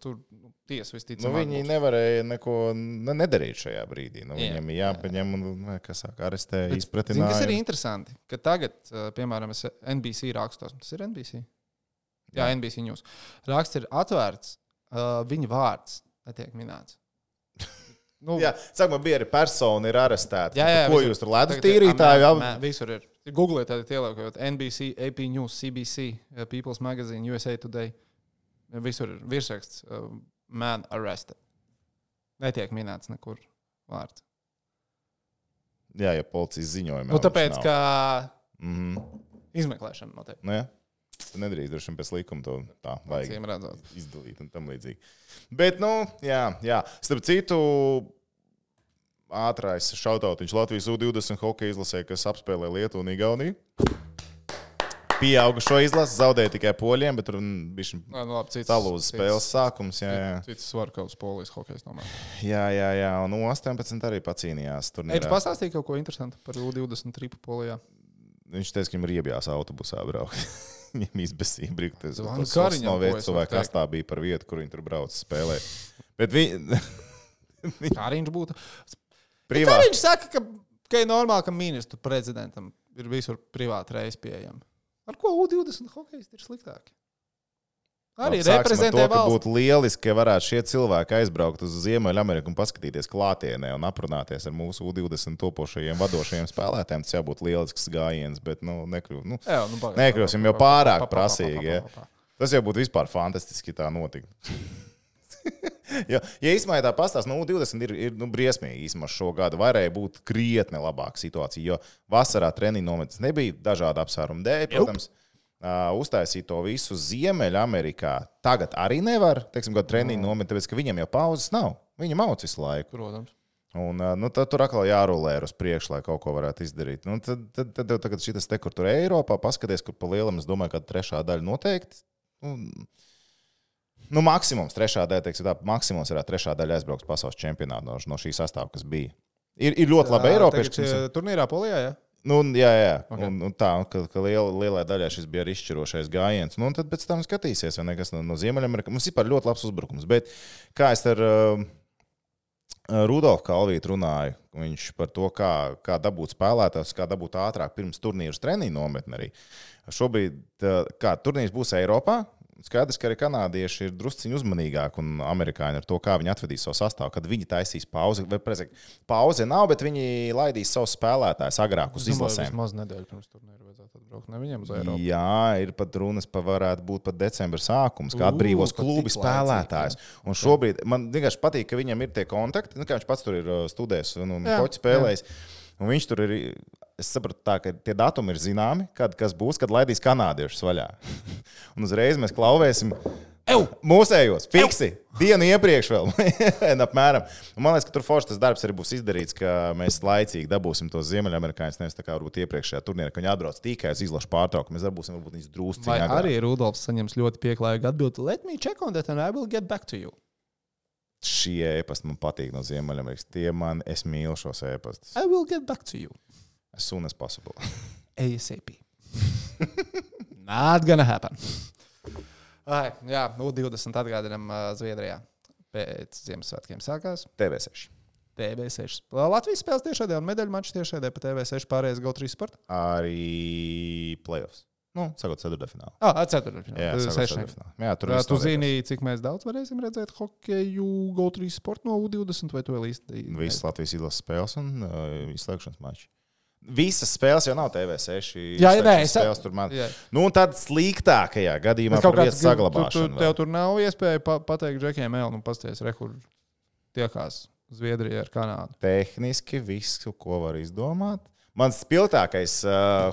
S1: tur tiesa visticamāk.
S3: Viņi nevarēja neko nedarīt šajā brīdī. Viņam ir jāpaņem un, arestē, izpratināja.
S1: Kas ir interesanti, ka tagad, piemēram, es NBC rakstos. Tas ir NBC? Jā, NBC News. Raksts ir atvērts, viņa vārds netiek minēts.
S3: Sākumā bija arī persona ir arestēta.
S1: Jā,
S3: ko jūs tur ledus tīrītāji?
S1: Visur ir. Google tādi ieliekot NBC, AP News, CBC, People's Magazine, USA Today. Visur ir virsraksts man arrested. Netiek minēts nekur vārds.
S3: Jā, policijas ziņojumā.
S1: Tāpēc, ka izmeklēšana notiek.
S3: Tu nedrīkst droši vien pēc likuma to tā vajag
S1: izdalīt
S3: un tam līdzīgi. Bet, jā. Starp citu, ātrais šautautiņš Latvijas U20 hokeja izlasē, kas apspēlē Lietuvu un Igauniju. Pieauga šo izlasi, zaudēja tikai poļiem, bet tur bija talūzas spēles sākums.
S1: Cits var kaut uz polijas hokejs nomēr.
S3: Jā, un 18 arī pacīnījās.
S1: Viņš pastāstīja kaut ko interesantu par U20 tripu polijā.
S3: Viņš teica, ka viņam ir iebjās autobusā braukt. Viņam izbesīja brīkties.
S1: Kariņam
S3: pojas, vai kas tā bija par vietu, kur viņi tur brauc spēlēt. Bet
S1: Kariņš būtu. Kariņš saka, ka ir normāli, ka ministru prezidentam ir visur privāti reisi pieejami. Ar ko U20 hokejisti ir sliktāki? Arī reprezentē valsts.
S3: Būtu lieliski, ka varētu šie cilvēki aizbraukt uz Ziemeļameriku un paskatīties klātienē un aprunāties ar mūsu U20 topošajiem vadošajiem spēlētājiem. Tas jābūt lielisks gājiens, bet nekļūsim jau pārāk prasīgi. Tas jau būtu vispār fantastiski, tā notika. Ja īstenībā tā pastāsta, U20 ir briesmīgi īstenībā šo gadu. Varēja būt krietni labāka situācija, jo vasarā treniņu nometnes nebija dažādu apsvērumu dēļ, protams. Uztaisīt to visu Ziemeļamerikā tagad arī nevar, kādu treniņu nometni, tāpēc, ka viņiem jau pauzes nav. Viņi mauc visu laiku.
S1: Protams.
S3: Un tad tur atkal jārulē uz priekšu, lai kaut ko varētu izdarīt. Tad tagad šitas te, kur tur Eiropā, paskaties, kur pa lielam, es domāju, ka trešā daļa noteikti. Nu, maksimums trešā daļa, teiksim, tā, maksimums ir trešā daļa aizbrauks pasaules čempionātā no šī sastāvā, kas bija. Ir ļoti labi Eiropieši.
S1: Turnīrā Polijā, jā?
S3: Nu, jā. Okay. Un tā, ka lielai daļai šis bija arī izšķirošais gājiens. Nu, un tad pēc tam skatīsies, vai nekas no Ziemeļamerikas. Mums ir ļoti labs uzbrukums. Bet kā es ar Rudolfu Kalvītu runāju, viņš par to, kā dabūt spēlētājus, kā dabūt ātrāk pirms turnīrus treniņu nometni arī. Šobrīd, kā turnīrs būs Eiropā, skaidrs, ka arī kanādieši ir drusciņi uzmanīgāki un amerikāņi ar to, kā viņi atvedīs savu sastāvu, kad viņi taisīs pauzi. Pauze nav, bet viņi laidīs savus spēlētājus agrāk uz izlasēm.
S1: Vismaz nedēļu pirms turnīra vajadzētu atbraukt, ne viņiem uz Eiropu.
S3: Jā, ir pat runas, varētu būt pat decembra sākums, kā atbrīvos klubi spēlētājus. Un šobrīd man vienkārši patīk, ka viņam ir tie kontakti, kā viņš pats tur ir studējis un hoķi spēlējis. Un viņš tur ir, es sapratu tā, ka tie datumi ir zināmi, kas būs, kad laidīs kanādiešus vaļā. Un uzreiz mēs klauvēsim mūsējos, fiksi, dienu iepriekš vēl, apmēram. Un man liekas, ka tur forši tas darbs arī būs izdarīts, ka mēs laicīgi dabūsim tos ziemeļamerikāņus, nevis tā kā varbūt iepriekšējā turnīrā, ka viņi atbrauc tikai uz izlašu pārtraukumu. Mēs dabūsim varbūt viņus drūsciņā.
S1: Vai arī Rudolfs saņems ļoti pieklājīgu atbildi. Let me check on that and I will get back to you.
S3: Šie ēpasti man patīk no Ziemeļamerikas. Es mīlu šos ēpastus.
S1: I will get back to you.
S3: As soon as possible.
S1: ASAP. Not gonna happen. Jā, 20 atgādinām Zviedrijā. Pēc Ziemassvētkiem sākās.
S3: TV6.
S1: TV6. Latvijas spēles tiešādē un medaļu maču tiešādē pa TV6 pārējais GO3 sporta.
S3: Arī playoffs. Nu, sakot, ceturtdaļfinālā.
S1: Ceturtdaļfinālā.
S3: Jā, ceturtdaļfinālā. Jā, tur
S1: tu zini, cik mēs daudz varēsim redzēt hokeju GO3 sporta no U20 vai to vēl īsti?
S3: Visas Latvijas izlases spēles un izslēgšanas mači. Visas spēles jau nav TV6.
S1: Jā,
S3: spēles tur man. Nu, un tad sliktākajā gadījumā par vietas saglabāšanu.
S1: Tev tur nav iespēja pateikt Džekiem Elnu, pasties, kur tiekās Zviedrija ar Kanādu.
S3: Tehniski visu, ko var izdomāt. Mans spilgtākais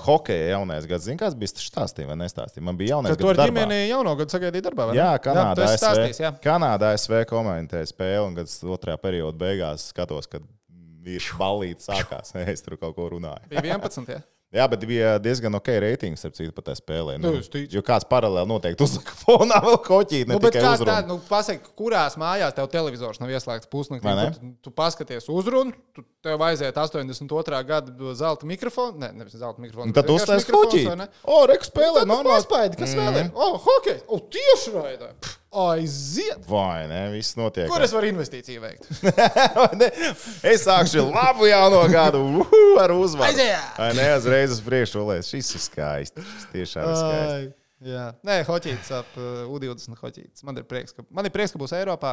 S3: hokeja jaunais gads, zini, kāds bija stāstīja vai nestāstīja? Man bija jaunais gads darbā.
S1: Tu ar ģimeni jauno gadu sagaidīji darbā, vai ne?
S3: Jā, Kanādā ASV komentēja spēli un gads otrajā perioda beigās skatos, kad ir ballīte sākās. Es tur kaut ko runāju.
S1: Bija 11, jā?
S3: Jā, bet bija diezgan ok reitings, starp citu, pat tā spēlē.
S1: Nu,
S3: jo kāds paralēli noteikti uzlika fonā vēl koķīt, ne tikai uzrunu.
S1: Pasaki, kurās mājās tev televizors nav ieslēgts pusnaktī? Tu paskaties uzrunu, tev aiziet 82. gada zelta mikrofonu. Nevis zelta mikrofonu.
S3: Tad uzslēdz koķīt. Reku spēlē, normāli.
S1: Paspēdi, kas vēl ir? Hokej! Tieši raidā! Aiziet!
S3: Vai ne? Viss notiek.
S1: Kur es varu investīciju veikt?
S3: Es sākšu labu jauno gadu ar uzvaru.
S1: Aiziet!
S3: Ne, uzreiz uz priekšu olēs. Šis ir skaisti. Šis tiešām ir skaisti.
S1: Jā. Nē, hoķīts ap U20 hoķīts. Man ir prieks, ka būs Eiropā.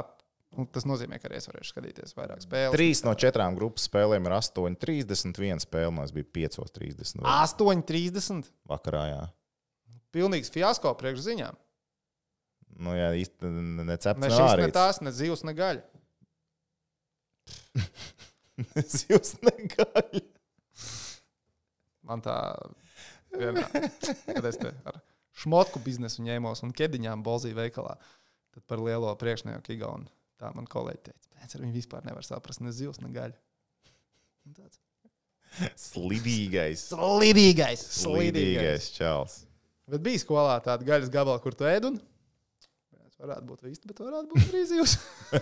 S1: Tas nozīmē, ka arī es varēšu skatīties vairāk spēles.
S3: 3 no 4 grupas spēlēm ir 8:30. Viena spēle mums bija 5:30.
S1: 8:30?
S3: Vakarā, jā.
S1: Pilnīgs fiasko priekš ziņām.
S3: Nu, jā, īsti necepts.
S1: Ne šis, ne tās, ne zivs, ne gaļa.
S3: Zivs, ne gaļa.
S1: Man tā vienmēr, kad es te ar šmotku biznesu ņēmos un kediņām bolzīju veikalā, tad par lielo priekšnieku Igaunu. Tā man kolēģi teica, pēc ar viņu vispār nevar saprast ne zivs, ne gaļa.
S3: Slidīgais.
S1: Slidīgais
S3: čals.
S1: Bet bija skolā tāda gaļas gabala, kur tu ēd un varētu būt īsti, bet varētu būt arī zivs.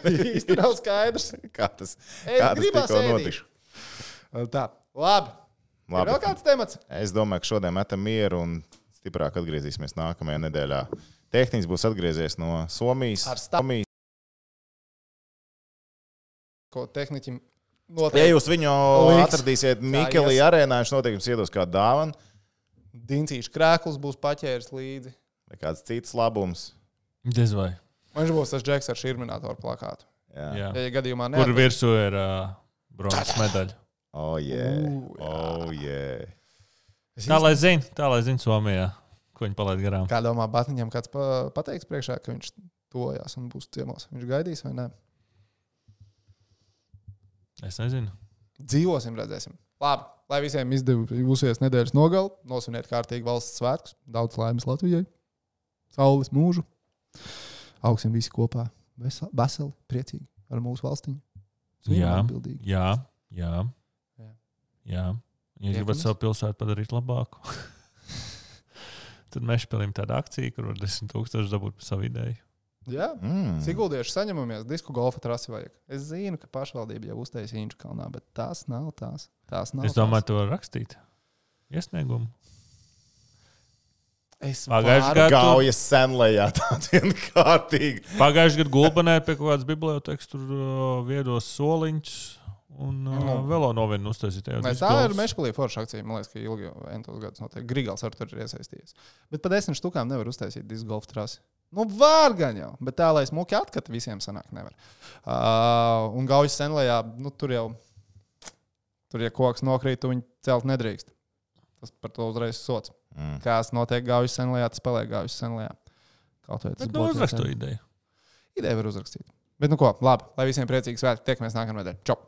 S1: Īsti nav skaidrs.
S3: Kā tas tikko notiks?
S1: Tā, labi. Ir vēl kāds temats?
S3: Es domāju, ka šodien metam mieru un stiprāk atgriezīsimies nākamajā nedēļā. Tehniks būs atgriezies no Somijas.
S1: Ko tehniķim noteikti.
S3: Ja jūs viņu atradīsiet Mikelī arēnā, viņš noteikti jums iedos kādu dāvanu.
S1: Dincīšu krēkls būs paķēris līdzi.
S3: Vai kāds cits labums.
S2: Diez vai.
S1: Viņš būs tas Džeks ar širminātoru plakātu.
S3: Jā.
S1: Ja gadījumā ne.
S2: Kur virsū ir bronzas medaļa.
S3: Oh, yeah.
S2: Tā lai zina Somijā, ko viņi palaid garām.
S1: Kā domā, Batniņam kāds pateiks priekšā, ka viņš tojās un būs ciemos? Viņš gaidīs vai ne?
S2: Es nezinu.
S1: Dzīvosim, redzēsim. Labi, lai visiem izdevusies nedēļas nogali, nosviniet kārtīgi valsts svētkus, daudz laimes Latvijai, saules mūžu. Augsim visi kopā, veseli, priecīgi ar mūsu valstiņu.
S2: Jā. Ja gribat savu pilsētu padarīt labāku, tad mēs spēlējam tādu akciju, kur var 10,000 dabūt par savu ideju.
S1: Jā, Siguldieši saņemamies, disku golfa trasi vajag. Es zinu, ka pašvaldība jau uztaisīja Inčukalnā, bet tās nav tās.
S2: Es domāju, to var rakstīt. Iesniegumu.
S1: Es
S2: Pagājušajā gadā
S3: Gaujas senlējā tāda vienkārtīga.
S2: Pagājušajā gadā Gulbenē pie kaut kādas bibliotēkas tur viedos soliņus un vēl novienu uztaisīt.
S1: Tā ir Mešpilī forša akcija. Man liekas, ka ilgi entos gadus notiek. Grigals ar tur ir iesaistījies. Bet pa 10 štukām nevar uztaisīt disku golfa trasi. Nu, var gan jau, bet tā, lai smuki atkata visiem sanāk, nevar. Un Gaujas senlējā, tur, ja koks nokrīt, tu viņu celt nedrīkst. Tas par to uzreiz sots. Kāds notiek Gaujas senlējā, tas paliek Gaujas senlējā.
S2: Bet uzrakstu ideju.
S1: Ideju var uzrakstīt. Bet ko, labi, lai visiem priecīgi svētki, tiekamies nākamnedēļ. Čau!